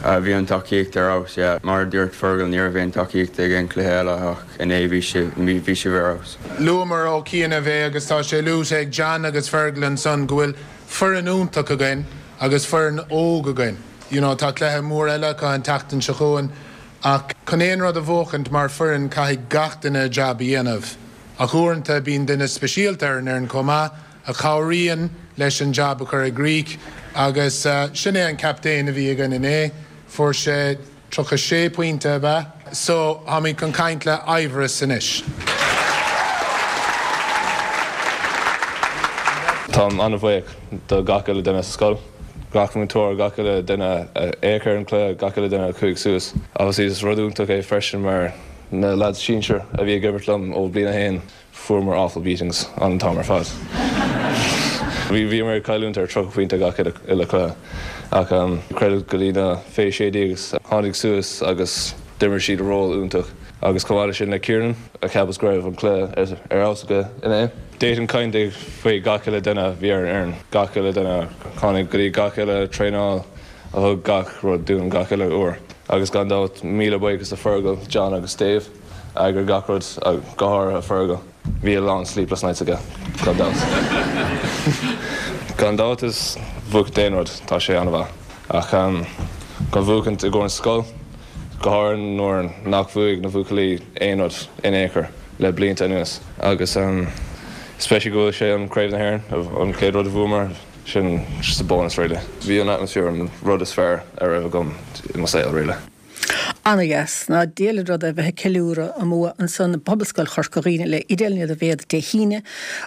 Bhí an tacaíocht ar fheabhas, yeah. Mar a dúirt Fergal ní raibh aon tacaíocht ag aon cluiche eile ach inné bhí bhí sibh ar fheabhas. Luamar ó chianaibh é agus tá sé luaite ag John agus Fergal ansan go bhfuil foireann iontach againn agus foireann óg againn. You know tá cluiche mór eile acu an tseachtain seo chugainn ach chun aon rud a bhuachaint mar foireann caithfidh gach duine a jab a dhéanamh ach uaireanta bíonn duine speisialta ar an fhoireann chomh maith a chabhraíonn leis an jab a chur i gcrích agus sin é an captaen a bhí againn inné. Fuair sé 36 pointe, ab ea? So, táimid chun caint le Aimhreas anois. Táim an-bhuíoch do gach uile duine sa scoil, gach múinteoir, gach uile duine a fhéach ar an cluiche, gach uile duine a chuaigh suas. Obviously is rud iontach é freisin mar na lads sinsir a bhí ag imirt liom ó bliain a haon, Fuaireamar awful beatings an t-am ar fad. Bhí bhíomar ag cailliúint ar 30 pointe gach uile cluiche ach credit go dtí na fé 16 a tháinig suas agus d'imir siad ról iontach agus chomh maith le sin le Kiernan a cheapas go raibh an cluiche ar fheabhas aige inné. D'fhéadfainn caint faoi gach uile duine a bhí ar an fhoireann, gach uile duine a tháinig go dtí gach uile traenáil a thug gach rud dúinn gach uile uair agus gan dabht míle buíochas do Fergal, John agus Dave. Eagraigh gach rud, go háirithe Fergal. Bhí a lán sleepless nights aige, gan dabht. Gan dabht is buachaint aon rud, tá sé an-mhaith. Ach chun buachaint i gcomhair an scoil, go háirithe nuair nach bhuaigh na buachaillí aon rud in aon chor le blianta anuas. Agus especially go bhfuil sé an Craobh na hÉireann, an chéad rud a bhuamar, sin just a bonus really. Bhí an atmosphere an rud is fearr a raibh agam i mo saol really. Ana-dheas. Ná diail an rud é bheith ag ceiliúradh a mbua ansan i bPobalscoil Chorca Dhuibhne le Idéal Nead an Mhéad Dé hAoine.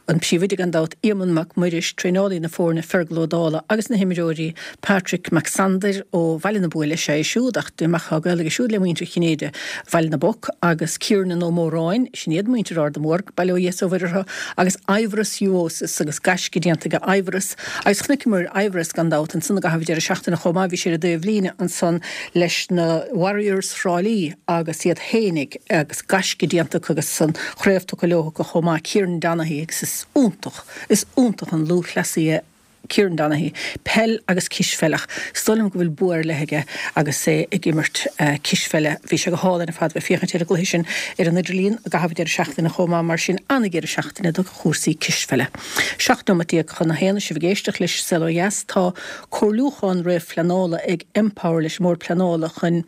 An Príomhoide gan dabht, Éamonn Mac Muiris, traenálaí na foirne Fergal Ó Dálaigh agus na himreoirí Patrick Mac Sandair ó Bhaile na Buaile is ea é siúd ach dé mar tá gaol aige siúd le muintir Chinnéide Bhaile na bPoc agus Kiernan Ó Móráin, sin iad muintir Ard an Bhairc, bail ó Dhia is ó Mhuire orthu, agus Aimhreas Juosis agus gaisce déanta aige Aimhreas agus chonaiceamar Aimhreas gan dabht ansan i gcaitheamh an deireadh seachtaine chomh maith, bhí sé ar an dtaobh líne ansan leis na Warriors Thrá Lí agus iad fhéinig agus gaisce déanta acu agus an chraobh tugtha leo acu chomh maith, Kieran Donaghy agus is iontach, is iontach an lúthchleasaí é Kieran Donaghy, peil agus cispheil ach is dóigh liom go bhfuil bua ar leith aige agus é ag imirt cispheile. Bhí sé go hálainn ar fad bheith féachaint ar an gcluiche sin ar an idirlíon i gcaitheamh an deireadh seachtaine chomh maith mar sin an-dheireadh seachtaine do chúrsaí cispheile. 17 nóimeat chun a haon, sibh ag éisteacht leis Saol Ó Dheas. Tá comhairliúchán réamhphleanála ag Empower leis an mBord Pleanála chun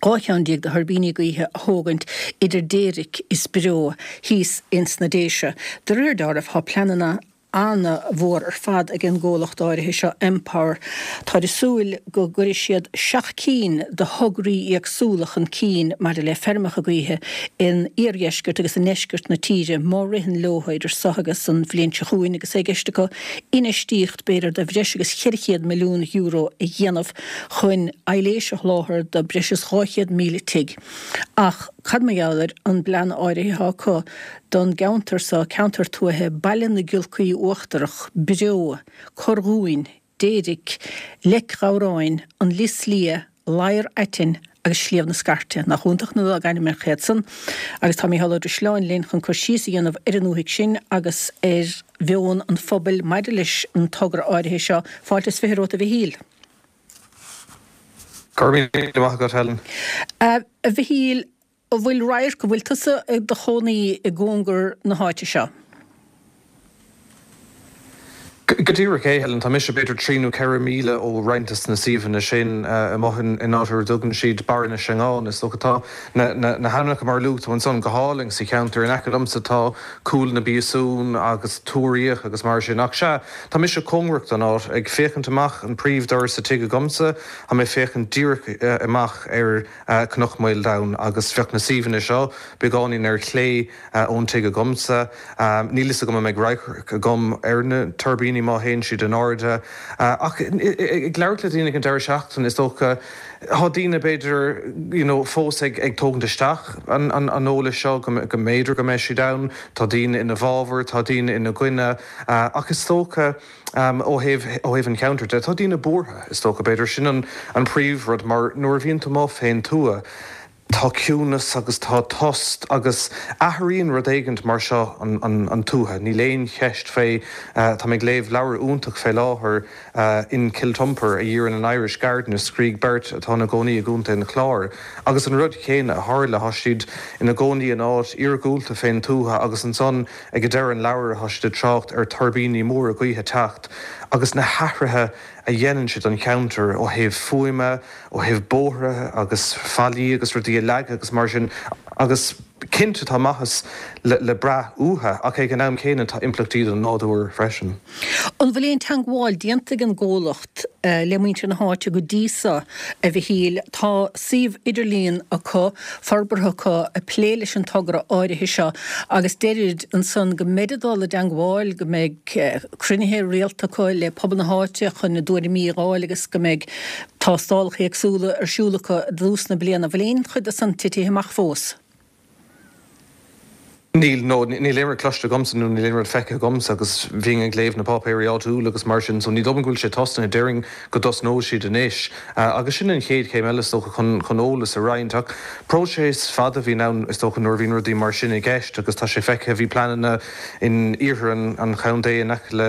12 cheann de thuirbíní gaoithe a thógaint idir Déiric is Breo thíos ins na Déise. De réir dealraimh tá pleananna ana-mhór ar fad ag an gcomhlacht áirithe seo, Empower. Táid ag súil go gcuirfidh siad 7 cinn de thograí éagsúla chun cinn maidir le feirmeacha gaoithe in iardheisceart agus i ndeisceart na tíre má ritheann leo idir seo agus an bhliain seo chugainn agus é i gceist acu infheistíocht b'fhéidir de bhreis agus €400 milliún a dhéanamh chun aibhléis a sholáthar do breis is 200,000 tigh. Ach cad mar gheall ar an bplean áirithe atá acu don gceantar seo, ceantar tuaithe Baile na Giolcaí Uachtarach, Breo, Corr Dhúin, Déiric, Leic Ghabhráin, An Lios Liath, Ladhar Aitinn agus Sliabh na Scairte. Nach iontach na logainmneacha iad san? Agus tá Mícheál Ó Drisleáin linn chun cur síos a dhéanamh ar an ndúthaigh sin agus ar mheon an phobail maidir leis an togra áirithe seo. Fáilte is 20 romhat a Mhichíl. Go raibh míle maith agat, Helen. A Mhichíl, an bhfuil radharc, an bhfuil tusa i do chónaí i gcóngar na háite seo? Go díreach é, Helen. Tá mise b'fhéidir trí nó 4 míle ó roinnt des na suíomhanna sin, amuigh in áit ar a dtugann siad Barra na Seangán. Is dócha tá na hainmneacha mar a luaigh tú ansan go hálainn sa cheantar. In aice liomsa tá Cúil na bPíosún agus Tuar Fhiach agus mar sin. Ach sea, tá mise cóngarach don áit, ag féachaint amach an príomhdhoras sa tigh agamsa, tá mé ag féachaint díreach amach ar Cnoc Mhaoldomhain agus bheadh na suíomhanna seo beagáinín ar chlé ón tigh agamsa. Níl fhios agam an mbeidh radharc agam ar na tuirbíní má théann siad in airde. Ach ag labhairt le daoine ag an deireadh seachtaine, is dócha, tá daoine b'fhéidir you know fós ag ag tógaint isteach an an an eolais seo go go mb'fhéidir go mbeidh siad ann. Tá daoine ina bhfabhar, tá daoine ina gcoinne. Ach is dócha ó thaobh ó thaobh an cheantair de, tá daoine buartha, is dócha. B'fhéidir sin an an príomhrud mar nuair a bhíonn tú amuigh fén tuath, tá ciúnas agus tá tost agus athraíonn rud éigint mar seo an tuath, níl aon cheist fé. Tá mé ag léamh leabhar iontach fé láthair, In Kiltupper, A Year in an Irish Garden, a scrígh beirt atá ina gcónaí i gContae an Chláir. Agus an rud chéanna a tharla, tá siad ina gcónaí in áit iargúlta fén tuath agus ansan ag deireadh an leabhair tá siad ag trácht ar tuirbíní móra gaoithe teacht agus na hathruithe a dhéanann siad don cheantar ó thaobh fuaime, ó thaobh bóithre agus fallaí agus rudaí a leagadh agus mar sin agus cinnte tá maitheas le brath uathu ach ag an am céanna tá impleachtaí don nádúr freisin. An bhfuil aon teangmháil déanta ag an gcomhlacht le muintir na háite go dtí so, a Mhichíl? Tá suíomh idirlíon acu, forbartha acu ag plé leis an togra áirithe seo agus deirid ansan go mbeid ag dul i dteangmháil, go mbeidh cruinnithe rialta acu le pobal na háite chun a dtuairimí a dh'fháil agus go mbeidh tástálacha éagsúla ar siúl acu i dtús na bliana. Bhfuil aon chuid de san titithe amach fós? Níl, no, níl aon rud cloiste agamsa nó níl aon rud feicthe agamsa agus bhínn ag léamh na páipéirí áitiúla agus mar sin so ní dóigh liom go bhfuil sé tosnaithe, déarfainn go dtosnóidh siad anois agus sin an chéad chéim eile is dócha chun, chun eolas a roinnt ach próiseas fada a bhíonn ann is dócha nuair a bhíonn rudaí mar sin i gceist agus tá sé feicthe, bhí pleananna in iarthar an, an chontae in aice le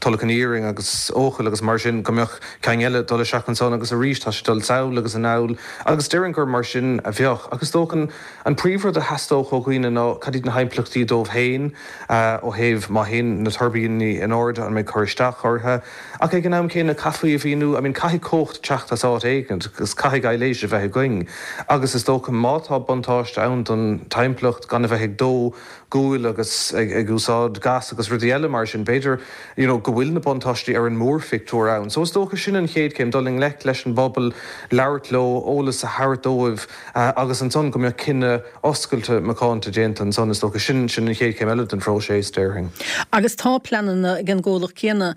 Tulach an Iarainn agus Eochaill agus mar sin go mbeadh ceann eile dul isteach ansan agus arís tá sé dul sall agus anall agus déarfainn gur mar sin a bheadh. Ach is dócha an príomhrud a theastódh ó dhaoine ná cad iad na himpleachtaí dóibh féin ó thaobh má théann na tuirbíní in airde an mbeidh cur isteach orthu. Ach ag an am céanna caithfí a mhíniú, I mean caithfidh cumhacht teacht as áit éigin agus caithfidh aibhléis a bheith againn agus is dócha má tá buntáiste ann don timpeallacht gan a bheith ag dó guail agus ag úsáid gas agus rudaí eile mar sin, b'fhéidir you know go bhfuil na buntáistí ar an mórphictiúr ann. So is dócha sin an chéad chéim, dul i ngleic leis an bpobal, labhairt leo, eolas a thabhairt dóibh agus ansan go mbeadh cinneadh oscailte macánta déanta ansan, is dócha. Sin sin an chéad chéim eile den phróiseas, déarfainn. Agus tá pleananna ag an gcomhlacht céanna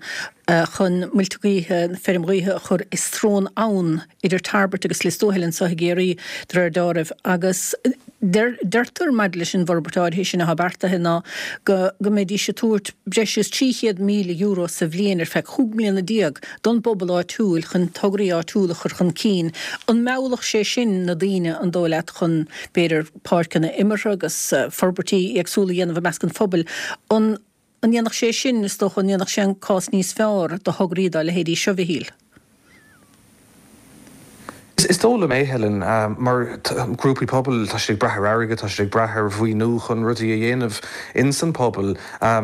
chun muilte gaoithe, feirm ghaoithe a chur i srón abhann idir Tarbert agus Lios Tuathail anseo i gCiarraí, de réir dealraimh, agus deirtear maidir leis an bhforbairt áirithe sin atá beartaithe ná go go mbeidís ag tabhairt breis is €300,000 sa bhliain ar feadh 15 mbliana don bpobal áitiúil chun tograí áitiúla a chur chun cinn. An meallfadh sé sin na daoine, an dóigh leat, chun b'fhéidir páirceanna imeartha agus forbairtí éagsúla a dhéanamh i measc an phobail? An An ndéanfadh sé sin, is dócha, an ndéanfadh sé an cás níos fearr do thograí dá leithéidí seo, Mhichíl? Is dóigh liom é, Helen, mar grúpaí pobail, tá siad ag brath ar airgead, tá siad ag brath ar mhaoiniú chun rudaí a dhéanamh ins an pobal.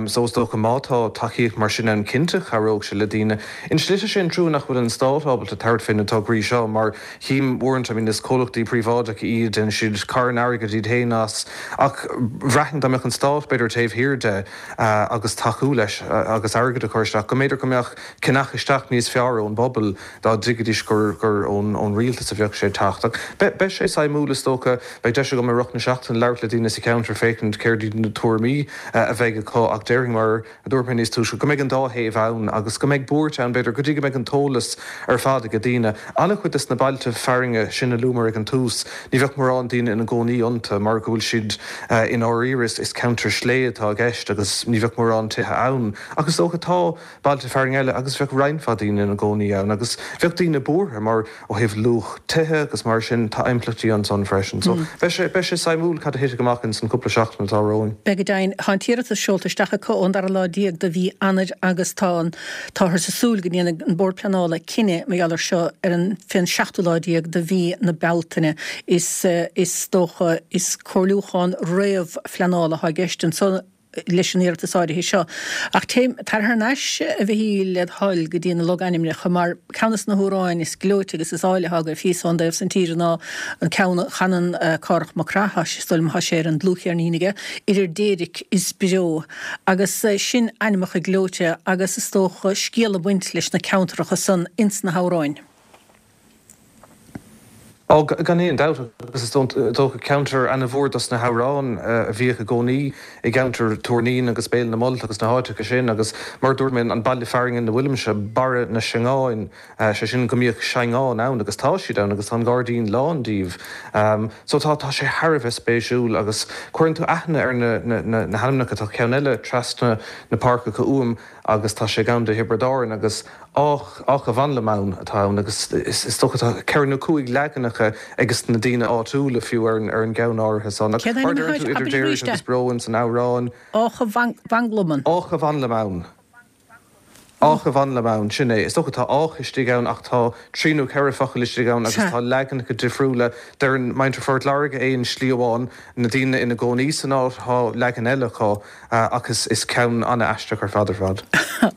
So is dócha má tá tacaíocht mar sin ann, cinnte chabhródh sé le daoine. In slite is é an trua nach bhfuil an stát ábalta tabhairt fé na tograí seo mar chím uaireanta, I mean is comhlachtaí príobháideacha iad, déanann siad carn airgid iad féin as ach bhraithfinn dá mbeadh an stát b'fhéidir taobh thiar de agus tacú leis agus airgead a chur isteach, go mb'fhéidir go mbeadh ceannach isteach níos fearr ón bpobal dá dtuigfidís gur gur ón ón rialtas a bheadh sé ag teacht. Ach beidh beidh sé suimiúil is dócha, beidh deis agam i rith na seachtaine labhairt le daoine sa cheantar féachaint céard iad na tuairimí a bheidh acu ach déarfainn mar a dúirt mé níos túisce, go mbeidh an dá thaobh ann agus go mbeidh buairt ann, b'fhéidir, go dtí go mbeidh an t-eolas ar fad ag daoine. An-chuid des na bailte fearainne sin a luamar ag an tús, ní bheadh mórán daoine ina gcónaí iontu mar go bhfuil siad i ndáiríre, is ceantar sléibhe atá i gceist agus ní bheadh mórán tithe ann. Ach is dócha tá bailte fearainn eile agus bheadh roinnt mhaith daoine ina gcónaí ann agus bheadh daoine buartha mar ó thaobh luach. tithe agus mar sin, tá impleachtaí ansan freisin. So, beidh sé, beidh sé suimiúil cad a thitfidh amach ins an cúpla seachtain atá romhainn. Beidh go deimhin. Tá an t-iarratas seolta isteach acu ón dara lá déag de mhí Eanáir agus tá an, táthar ag súil go ndéanfaidh an Bord Pleanála cinneadh mar gheall air seo ar an, fén seachtú lá déag de mhí na Bealtaine. Is, is dócha, is comhairliúchán réamh-phleanála atá i gceist anso. leis an iarratas áirithe seo. Ach téim, tar thar n-ais, a Mhichíl, led thoil, go dtí na logainmneacha, mar ceann de na hamhráin is gleoite agus is áille atá agaibh thíos ón dtaobh san tíre ná an ceann a chanann Cárthach Mac Craith, is dóigh liom, tá sé ar an dlúthcheirnín aige, Idir Déirc is Breo. Agus sin ainmneacha gleoite agus is dócha scéal ag baint leis na ceantracha san ins na hamhráin. Ó, gan aon dabht, agus is dócha ceantar ana-mhór dos na hamhráin a bhíodh i gcónaí i gceantar Tuar Naíon agus Béal na Molt agus na háiteacha sin agus mar a dúirt mé, an baile fearainn ina bhfuilimse, Barra na Seangáin, sé sin go mbíodh seangáin ann agus tá siad ann agus tá an gairdín lán díobh. So tá, tá sé thar a bheith spéisiúil agus cuireann tú aithne ar na, na, na hainmneacha, tá ceann eile trasna na páirceacha uaim agus tá sé i gContae Thiobraid Árann agus Áth a' Mhanlaim atá ann agus is dócha tá ceithre nó cúig leaganacha ages na daoine áitiúla fiú ar an gceann áirithe san. Ach mar a deireann tú idir Déiric agus Breo ins an amhrán. Áth a' Mhanlaim. Áth a' Mhanlaim. Áth a' Mhanlaim, sin é. Is dócha tá áth istigh ann ach tá trí nó ceithre focal istigh ann agus tá leaganacha difriúla. Deireann muintir Phort Láirge é in slí amháin, na daoine ina gcónaí san áit, tá leagan eile acu. Ach is ceann an-aisteach ar fad ar fad.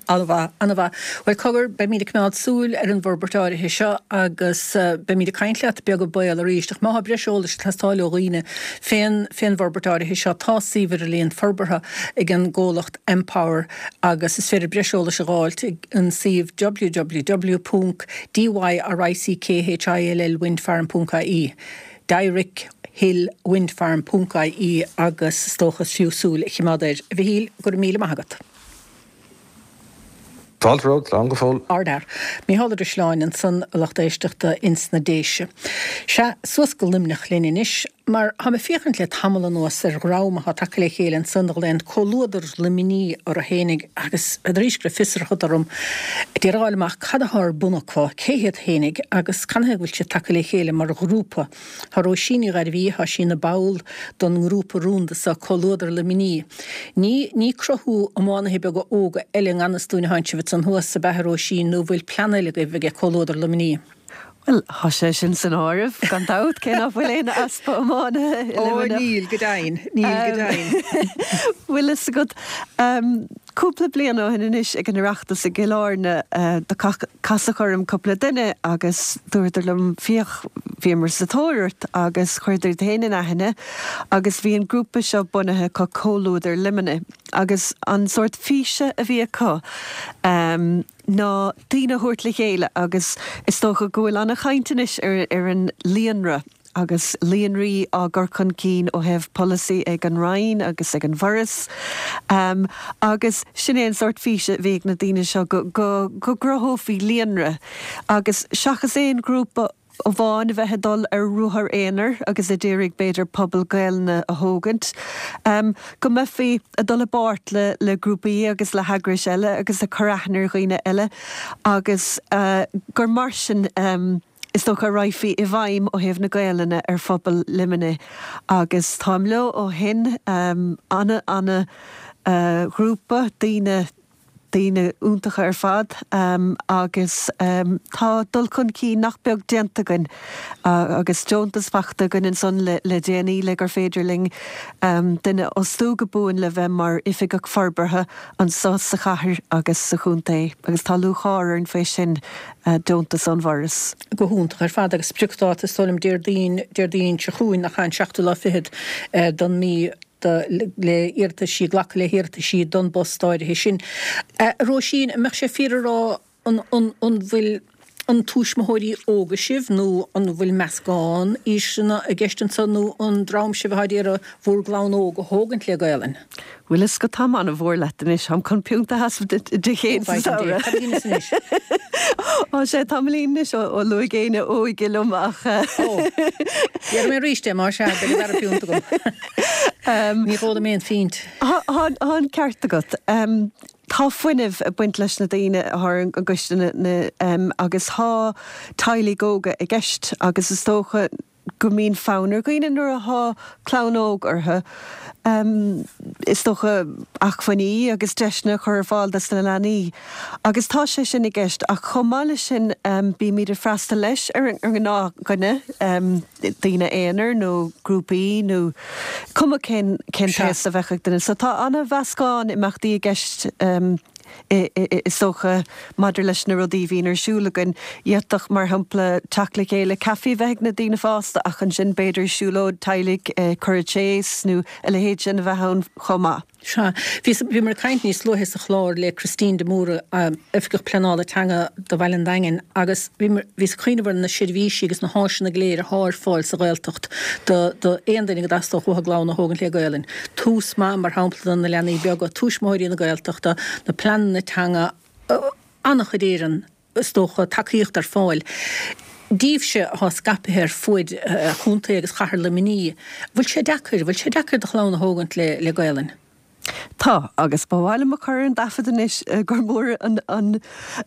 An-mhaith, an-mhaith. Bhuel, cogar, beimid ag coimeád súil ar an bhforbairt áirithe seo agus beimid ag caint leat beag beann arís. Ach má tá breis eolais ag teastáil ó dhaoine fén fén bhforbairt áirithe seo, tá suíomh idirlíon forbartha ag an gcomhlacht Empower agus is féidir breis eolais a dh'fháilt ag an suíomh www ponc DYRICKHILL windfarm ponc ie. Dyrick Hill Wind Farm ponc ie agus is dócha is fiú súil a chimeád air. A Mhichíl, go raibh míle maith agat. Fáilte romhat, slán go fóill. Ardfhear. Mícheál Ó Drisleáin ansan, a lucht éisteachta ins na Déise. Sea, suas go Luimneach linn anois, mar táim ag féachaint le tamall anuas ar dhream atá tagtha le chéile ansan a ghlaonn Comhluadar Luimnigh orthu fhéinig agus arís go raibh fiosracht orm d'iarraidh a fháil amach cad atá ar bun acu, cé hiad fhéinig agus canathaobh go bhfuil siad tagtha le chéile mar ghrúpa. Tá Róisín Ní Ghairbhí, tá sí ina ball don ngrúpa rúnda seo, Comhluadar Luimnigh. Ní, ní cruthú iománaithe beaga óga eile i ngan fhios dúinn atá sibh ansan thuas, ab ea a Róisín, nó bhfuil plean eile agaibh aige Comhluadar Luimnigh? Bhuel, tá sé sin san áireamh, gan dabht, cé nach bhfuil aon easpa iománaithe i Ó, Luimneach. níl, go deimhin, níl, go deimhin. Bhfuil fhios agat, Cúpla bliain ó shin anois ag an Oireachtas i gCill Airne do casadh orm cúpla duine agus dúradar liom féach bhíomar sa tóir ort agus chuireadar iad féin in aithne agus bhí an grúpa seo bunaithe acu Comhluadar Luimnigh agus an sórt físe a bhí acu ná daoine a thabhairt le chéile agus is dócha go bhfuil ana-chaint anois ar an líonra. agus líonraí á gcur chun cinn ó thaobh polasaí ag an Roinn agus ag an bhForas. Agus sin é an sórt físe a bhí ag na daoine seo, go gcruthófaí líonra agus seachas aon ghrúpa amháin a bheith ag dul ar ruathar aonair agus a d'iarraidh b'fhéidir pobal Gaelainne a thógaint, go mbeifí ag dul i bpáirt le grúpaí agus le heagrais eile agus ag cur aithne ar dhaoine eile agus gur mar sin is dócha a raghfaí i bhfeidhm ó thaobh na Gaelainne ar phobal Luimnigh agus táim leo ó shin, ana, ana ghrúpa, daoine, daoine iontacha ar fad agus tá dul chun cinn nach beag déanta againn agus deontas fachta againn ansan le le déanaí le gur féidir linn duine a fhostú go buan le bheith mar oifigeach forbartha anso sa chathair agus sa chontae agus tá lúcháir orainn faoi sin. deontas ón bhForas. Go hiontach ar fad agus spriocdháta is dóigh liom Déardaoin, Déardaoin seo chugainn nach ea an seachtú lá fichead don mí do le iarrataisí, glacadh le hiarrataisí don bpost áirithe sin. A Róisín, an mbeadh sé fíor a rá an, an, an bhfuil an tuismitheoirí óga sibh nó an bhfuil meascán aoiseanna i gceist anso nó an dream sibh atá ag iarraidh bhur gclann óg a thógaint le Gaelainn? Bhfuil fhios agat táim an-mhór leat anois, táim chun piúnta a sheasamh duit Dé Céadaoin sa samhradh. Cad a dheineas anois? Á sé tamaillín anois ó luaigh éinne óige liom ach. Ó, déarfaidh mé arís é, más ea, beidh an dara piúnt agam. Ní dh'ólaim aon phint. Tá an ceart agat. Tá fuinneamh ag baint leis na daoine atá ar an gcoiste agus tá teaghlaigh óga i gceist agus is dócha go mbíonn fonn ar dhaoine nuair atá clann óg orthu, is dócha, acmhainní agus deiseanna a chur ar fáil dos na leanaí agus tá sé sin i gceist ach chomh maith leis sin bímid ag freastal leis ar an ngnáthdhuine, daoine aonair nó grúpaí nó cuma cén cén t-aos a bheadh ag duine. So tá an-mheascán imeachtaí i gceist is dócha maidir leis na rudaí a bhíonn ar siúl againn. D'fhéadfadh, mar shampla, teacht le chéile, caife a bheith ag na daoine fásta ach ansin b'fhéidir siúlóid teaghlaigh, cur tséis nó a leithéid sin a bheith ann chomh maith. Sea. Bhíomar ag caint níos luaithe sa chlár le Christine de Mórdha, Oifigeach Pleanála Teanga do Bhaile an Daingin, agus bhíos ag cuimhneamh ar na seirbhísí agus na háiseanna go léir athá ar fáil sa Ghaeltacht do aon duine go dteastódh uathu a gclann a thógaint le Gaelainn. Tús Maith, mar shampla, do na leanaí beaga, Tuismitheoirí na Gaeltachta, na pleananna teanga, an-chuid Éireann. is dócha, tacaíocht ar fáil daoibhse atá scaipthe ar fuaid chontae agus chathair Luimnigh. Bhfuil sé deacair, bhfuil sé deacair do chlann a thógaint le Gaelainn? Tá, agus ba mhaith liom a chur ar an dtaifead anois gur mór an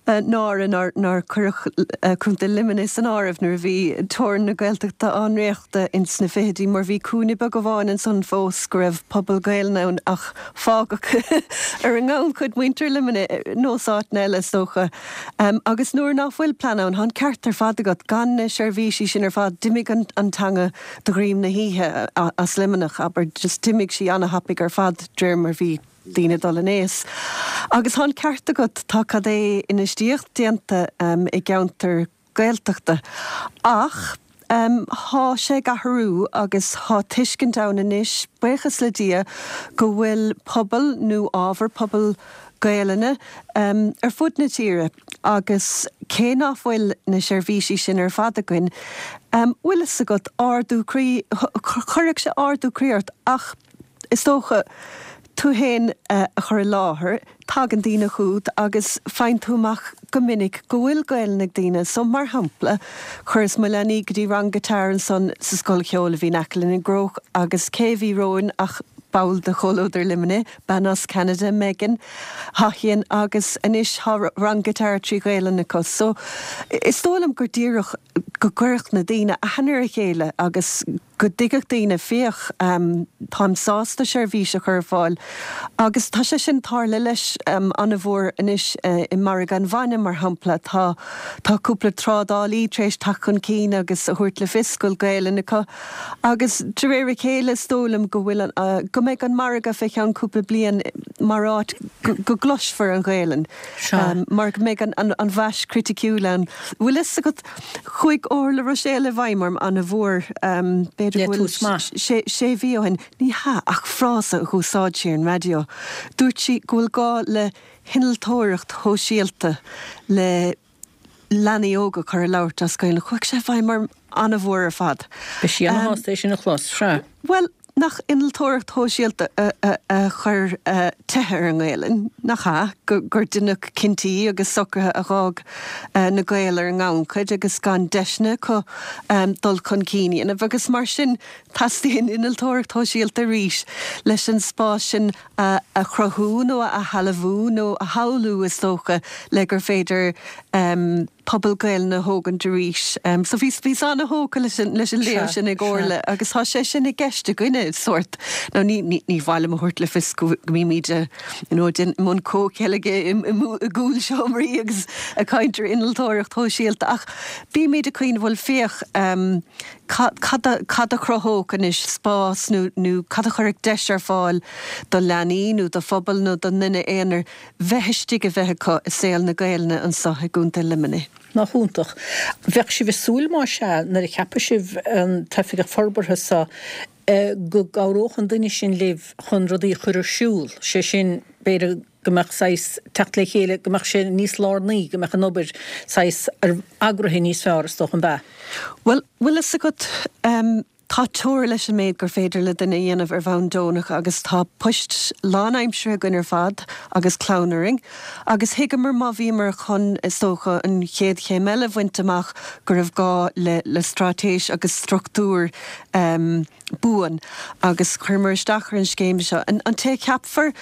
náire nár cuireadh Contae Luimnigh san áireamh nuair a bhí teorainn na Gaeltachta á ndréachtadh ins na fichidí mar bhí cúinne beag amháin ansan fós go raibh pobal Gaelainne ann ach Fágadh ar an ngannchuid muintir Luimnigh, nós áiteanna eile is dócha. Agus nuair ná fuil plean ann, tá an ceart ar fad agat, gan na seirbhísí sin ar fad, d'imigh an teanga de dhroim na hoíche as Luimneach, abair, just d'imigh sí ana-thapaidh ar fad de réir mar bhí daoine ag dul in aos. Agus tá an ceart agat, tá cad é infheistíocht déanta i gceantair Gaeltachta. Ach thá sé ag athrú agus thá tuiscint ann anois, buíochas le Dia, go bhfuil pobal nó ábhar pobal Gaelainne ar fud na tíre agus cé ná fuil na seirbhísí sin ar fad againn, bhfuil fhios agat, ardú croí, chuirfeadh sé ardú croí ort ach is dócha, tú fhéin a chur i láthair, tagann daoine chugat agus faigheann tú amach go minic go bhfuil Gaelainn ag daoine. So, mar shampla, chuireas mo leanaí go dtí rang guitar ansan sa scoil cheoil a bhí in aice linn i gCróch agus cé a bhí romhainn ach ball de Chomhluadar Luimnigh, bean as Ceanada, Megan Haughian agus anois tá rang guitar trí Ghaelainn acu. So, is dóigh liom gur díreach go gcuirfeadh na daoine aithne ar a chéile agus go dtuigfeadh daoine, féach, táim sásta seirbhís a chur ar fáil. Agus tá sé sin tarla leis an-mhór anois i margadh an bhainne, mar shampla. Tá, tá cúpla trádálaí tar éis teacht chun cinn agus a thabhairt le fios go bhfuil Gaelainn acu. Agus de réir a chéile is dóigh liom go bhfuil an, go mbeidh an margadh fé cheann cúpla bliain mar áit go gcloisfear an Ghaelainn. Mar go mbeidh an, an mhais chriticiúil ann. Bhfuil fhios agat, Chuaigh Orla Ruiséal i bhfeidhm orm ana-mhór, b'fhéidir go bhfuil sé mhí ó shin. Ní hea, ach frása a dh'úsáid sí ar an raidió. Dúirt sí go bhfuil gá le hinnealtóireacht shóisialta le leanaí óga a chur ag labhairt as Gaeilge. Chuaigh sé i bhfeidhm orm ana-mhór ar fad. Beidh sí ana-shásta é sin a chlos, sea. Bhuel, Nach innealtóireacht shóisialta a chuir teitheadh ar an nGaelainn, nach ea? Gur deineadh cinntí agus socruithe a dh'fhág na Gaeil ar an ngannchuid agus gan deiseanna acu dul chun cinn a dhéanamh agus mar sin teastaíonn innealtóireacht shóisialta arís leis an spás sin a chruthú nó a shealbhú nó a shamhlú is dócha le gur féidir pobal Gaelainne a thógaint arís. So bhíos, bhíos ana-thógtha leis an, leis an léamh sin ag Orla agus tá sé sin i gceist againne, sórt. Now ní, ní, ní mhaith liom a thabhairt le fios go, go mbímid a, you know, i mbun comhcheilge i, i, i gcúl seomraí agus ag caint ar innealtóireacht shóisialta ach bímid ag cuimhneamh, bhuel féach, cad, cad a, cad a chruthódh anois spás nó, nó cad a chuirfeadh deis ar fáil do leanaí nó do phobal nó don duine aonair bheith istigh a bheith acu i saol na Gaelainne anso i gContae Luimnigh. Nach iontach. Bheadh sibh ag súil más ea, nuair a cheapfaidh sibh an t-oifigeach forbartha so, go gcabhródh an duine sin libh chun rudaí a chur ar siúl, sé sin, b'fhéidir go mbeadh saghas teacht le chéile, go mbeadh sé níos lárnaí, go mbeadh an obair saghas eagraithe níos fearr is dócha, an b'ea? Bhuel, bhfuil fhios agat, Tá teora leis an méid gur féidir le duine a dhéanamh ar bhonn deonach agus tá poist lánaimseartha againn ar fad agus clann orainn agus thuigeamar má bhíomar chun, is dócha, an chéad chéim eile a bhaint amach go raibh gá le le straitéis agus struchtúr buan agus chuireamar isteach ar an scéim seo. An té a cheapfar?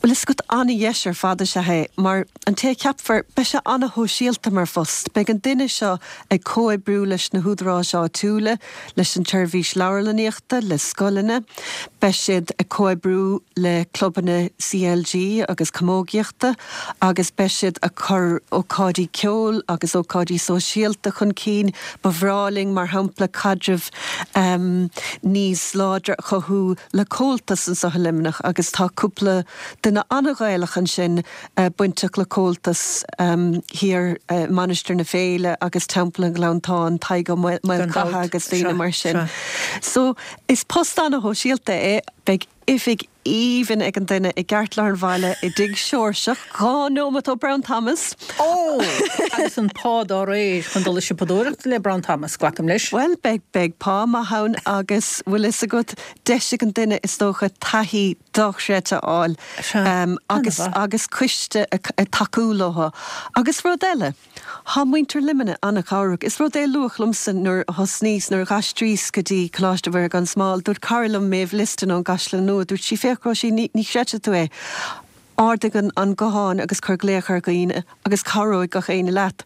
Bhuel, is agat an-dheis ar fad is ea é, mar an té a cheapfar, beidh sé an-shóisialta mar phost. Beidh an duine seo ag comhoibriú leis na húdaráis áitiúla, leis an tseirbhís leabharlannaíochta, le scoileanna. Beidh siad ag comhoibriú le clubanna CLG agus camógaíochta agus beidh siad ag cur ócáidí ceoil agus ócáidí sóisialta chun cinn. Ba bhreá linn, mar shampla, caidreamh níos láidre a chothú le Comhaltas anseo i Luimneach agus tá cúpla duine an-Ghaelach ansin bainteach le Comhaltas thiar i Mainistir na Féile agus Teampall an Ghleanntáin, Tadhg Ó Maolchatha agus daoine mar sin. So is post an-shóisialta é. Beidh oifig aoibhinn ag an duine i gceartlár an bhaile i dTigh Seoirseach, 2 nóimeat ó Brown Thomas. Ó! Agus an pá dá réir chun dul ag siopadóireacht le Brown Thomas, glacaim leis. Bhuel, beidh, beidh pá maith ann agus, bhfuil fhios agat, deis ag an duine is dócha taithí dochreidte a fháil agus, agus coiste ag tacú leo. Agus rud eile, thá muintir Luimnigh an-chabhrach. Is rud é a luadh liomsa nuair a thosnaíos, nuair a dh'aistríos go dtí Coláiste Mhuire gan Smál, dúirt cara liom, Maeve Liston ón gCaisleán Nua, dúirt sí, féach Róisín, ní, ní chreidfidh tú é, Ardaigh an guthán agus cuir glaoch ar dhaoine agus cabhróidh gach éinne leat.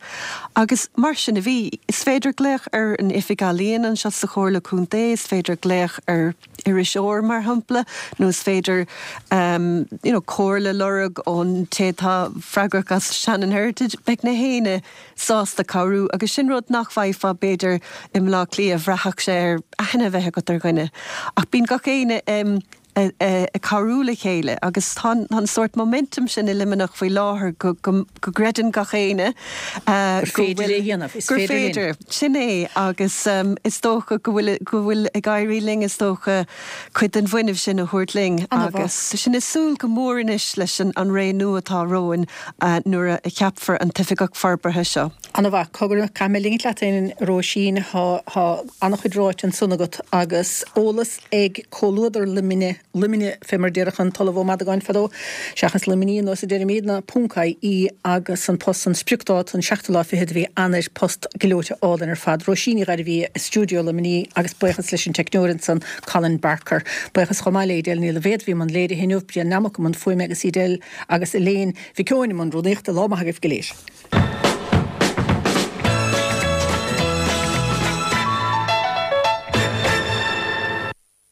Agus mar sin a bhí. Is féidir glaoch ar an Oifig Ealaíon anseo sa Chomhairle Contae, is féidir glaoch ar iriseoir mar shampla, nó is féidir you know comhairle a lorg ón té atá freagrach as Shannon Heritage. Beidh na héinne sásta cabhrú agus sin rud nach bhfaighfeá b'fhéidir i mBleá Cliath, bhraithfeadh sé ar aithne a bheith agat ar dhuine. Ach bíonn gach éinne ag cabhrú le chéile agus tá an sórt momentum sin i Luimneach faoi láthair go gcreideann gach éinne gur féidir é a dhéanamh, is féidir linn. Sin é agus is dócha go bhfuil go bhfuil ag éirí linn is dócha cuid den bhfuinneamh sin a thabhairt linn agus sinn ag súil go mór anois leis an ré nua atá romhainn nuair a cheapfar an tOifigeach Forbartha seo. Ana-mhaith. Cogar, caithfidh mé ligint leat féin, a Róisín, tá an-chuid ráite ansan agat agus eolas ag Comhluadar Luimne, Luimne fé mar a déarfadh an tOllamh Ó Madagáin fadó, seachas Luimní ar nós a deirimídne, ponc IE agus an post san spriocdáta an seachtú lá fichead de mhí Eanáir, post gleoite álainn ar fad. Róisín Ní Ghairbhí i stiúideo Luimní agus buíochas leis an teicneoir ansan, Colin Barker. Buíochas chomh maith le Edel Ní Loibhéad a bhí i mbun léirithe inniu, Brian Nammock i mbun fuaime agus Edel agus Elaine Mhic Eoin i mbun rúnaíochta. Lá maith agaibh go léir.